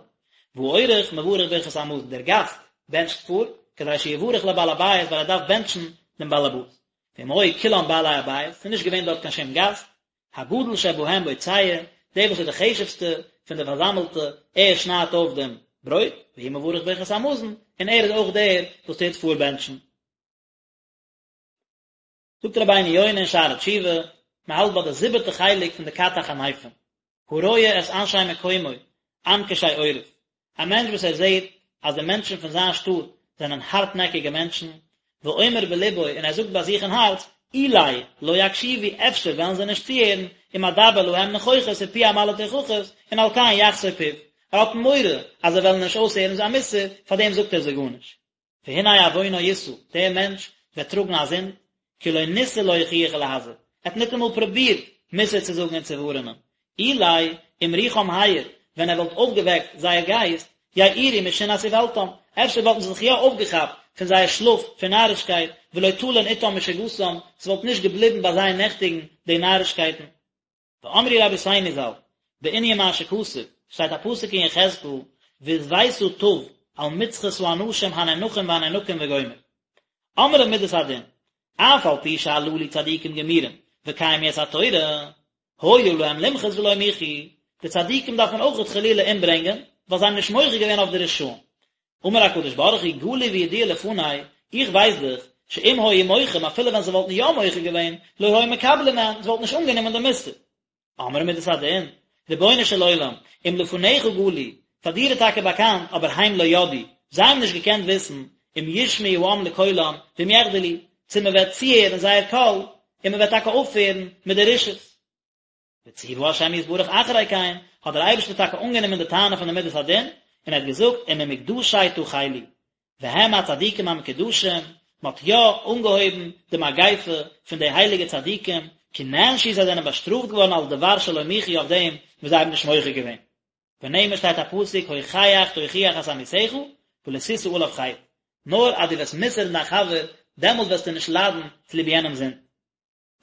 והאורח מברך ברכת המזון, דער גאסט בענטשט פאר, כדי שיברך לבעל הבית ווייל ער דארף בענטשן דעם בעל הבית. ואם היו כולם בעלי הבית, ס'איז נישט געווען דארט קיין שום גאסט, הגדול שבהם בוצע, דער וואס איז די חשוב'סטע פון די פארזאמעלטע, ער שניידט אויף דעם ברויט, והוא מברך ברכת המזון, און ער איז אויך דער וואס טוט פארבענטשן. זאגט רבינו יונה אין שערי תשובה, מען האלט ביי די זיבעטע חלק פון די כת החניפים, הרואה את אנשי מקומו, עם קשה עורף, א מענטש וואס ער זעט אז די מענטשן פון זיין שטאט זענען הארטנעקיגע מענטשן, ואומר בלבו און ער זאגט ביי זיך אין הארץ, אולי לא יקשיבו אפשר וועלן זיי נישט צוהערן, אם אדבר להם נכוחות ופי אמלא תוכחות, און על כן יחשוא פיו, ער האט מורא אז זיי וועלן נישט אויסהערן זיין מוסר, פארדעם זאגט ער זיי גארנישט. והנה עוונו ישא, דער מענטש וועט טראגן א זינד, כי לא ניסה להוכיח ולהזהיר, ער האט ניטאמאל פרובירט מוסר צו זאגן און צו ווארענען, אולי אם רוחם העיר, ווען ער וואלט אויפגעוועקט זייער גייסט, יעורו משינת איוולתם, אפשר וואלטן זיי זיך יא אויפגעכאפט פון זייער שלאף פון נארישקייט, ולא תלין אתם משוגתם, ס'וואלט נישט געבליבן ביי זיי נעכטיגן די נארישקייטן. ואמרו רבותינו ז"ל, בענין מה שכתוב, שטייט א פסוק אין יחזקאל, והתוית תו על מצחות האנשים הנאנחים והנאנקים וגומר. אמרה מדת הדין, אף על פי שהללו צדיקים גמורים, וקיימו את התורה, היה להם למחות ולא מיחו, די צדיקים דארף מען אויכעט חלילה אומברענגען, ווייל זיי האבן נישט מוחה געווען אויף די רשעים. אמר הקדוש ברוך הוא גלוי וידוע לפני, איך ווייס דאך, שאם היו מוחים אפילו ווען זיי וואלטן יא מוחה געווען, לא היו מקבלים מהן, זיי וואלטן נישט אנגענומען די מוסר. אמרה מידת הדין, רבונו של עולם, אם לפניך גלוי, פאר דיר איז טאקע באקאנט, אבער הם לא ידעו, זיי האבן נישט געקענט וויסן, אם ישמעו העם לקולם, ואם יחדלו, צו מען וועט צוהערן זייער קול, און מען וועט טאקע אויפהערן מיט די רשעות. וציוה השם יתברך אחרי כן, האט דער אייבערשטער טאקע אנגענומען די טענה פון די מידת הדין, און ער האט געזאגט, וממוקדשי תחלו, והם הצדיקים המקודשים, מען האט יא אנגעהויבן די מגיפה פון די הייליגע צדיקים, כי נענשו זיי זענען באשטראפט געווארן על דבר שלא מיחו אויף דעם וואס זיי האבן נישט מוחה געווען. ונאמר שטייט א פסוק הוכח תוכיח את עמיתך ולא תשא עליו חטא, נאר אז דו וועסט מוסר'ן דיין חבר, דעמאלט וועסטו נישט ליידן צוליב יענעמ'ס זינד.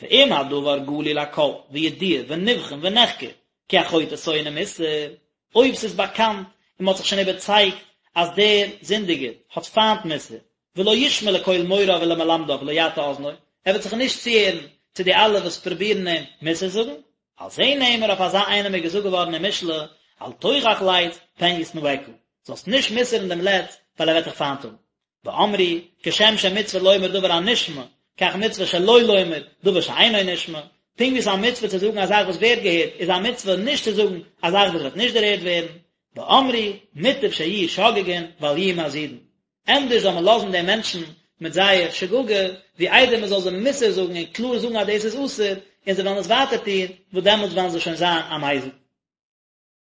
ואם הדבר גלוי לכל וידוע ונבחן ונחקר כי החוטא שונא מוסר, אויב ס'איז באקאנט און מ'האט זיך שוין איבערצייגט אז דער זינדיגער האט פיינט מוסר, ולא ישמע לקול מוריו ולמלמדיו ולא יטה אזנו, ער וועט זיך נישט צוהערן צו די אלע וואס פרובירן אים מוסר זאגן, על זה נאמר אויף אזא איינעם איז געזאגט געווארן אין משלי, אל תוכח לץ פן ישנאך, זאלסט נישט מוסר'ן דעם לץ ווייל ער וועט דיך פיינט האבן. ואמרו, כשם שמצוה לומר דבר הנשמע, כך מצוה שלא לומר דבר שאינו נשמע, פונקט ווי ס'איז א מצוה צו זאגן א זאך וואס ווערט געהערט, איז א מצוה נישט צו זאגן א זאך וואס וועט נישט דערהערט ווערן. ואמרו, מוטב שיהיו שוגגין ואל יהיו מזידין. ענדערש זאל מען לאזן די מענטשן מיט זייער שגגה, ווי איידער מען זאל זיי מוסר זאגן און קלאר זאגן אז דאס איז אסור, און זיי וועלן עס ווייטער טון, וואס דעמאלטס וועלן זיי שוין זיין א מזיד.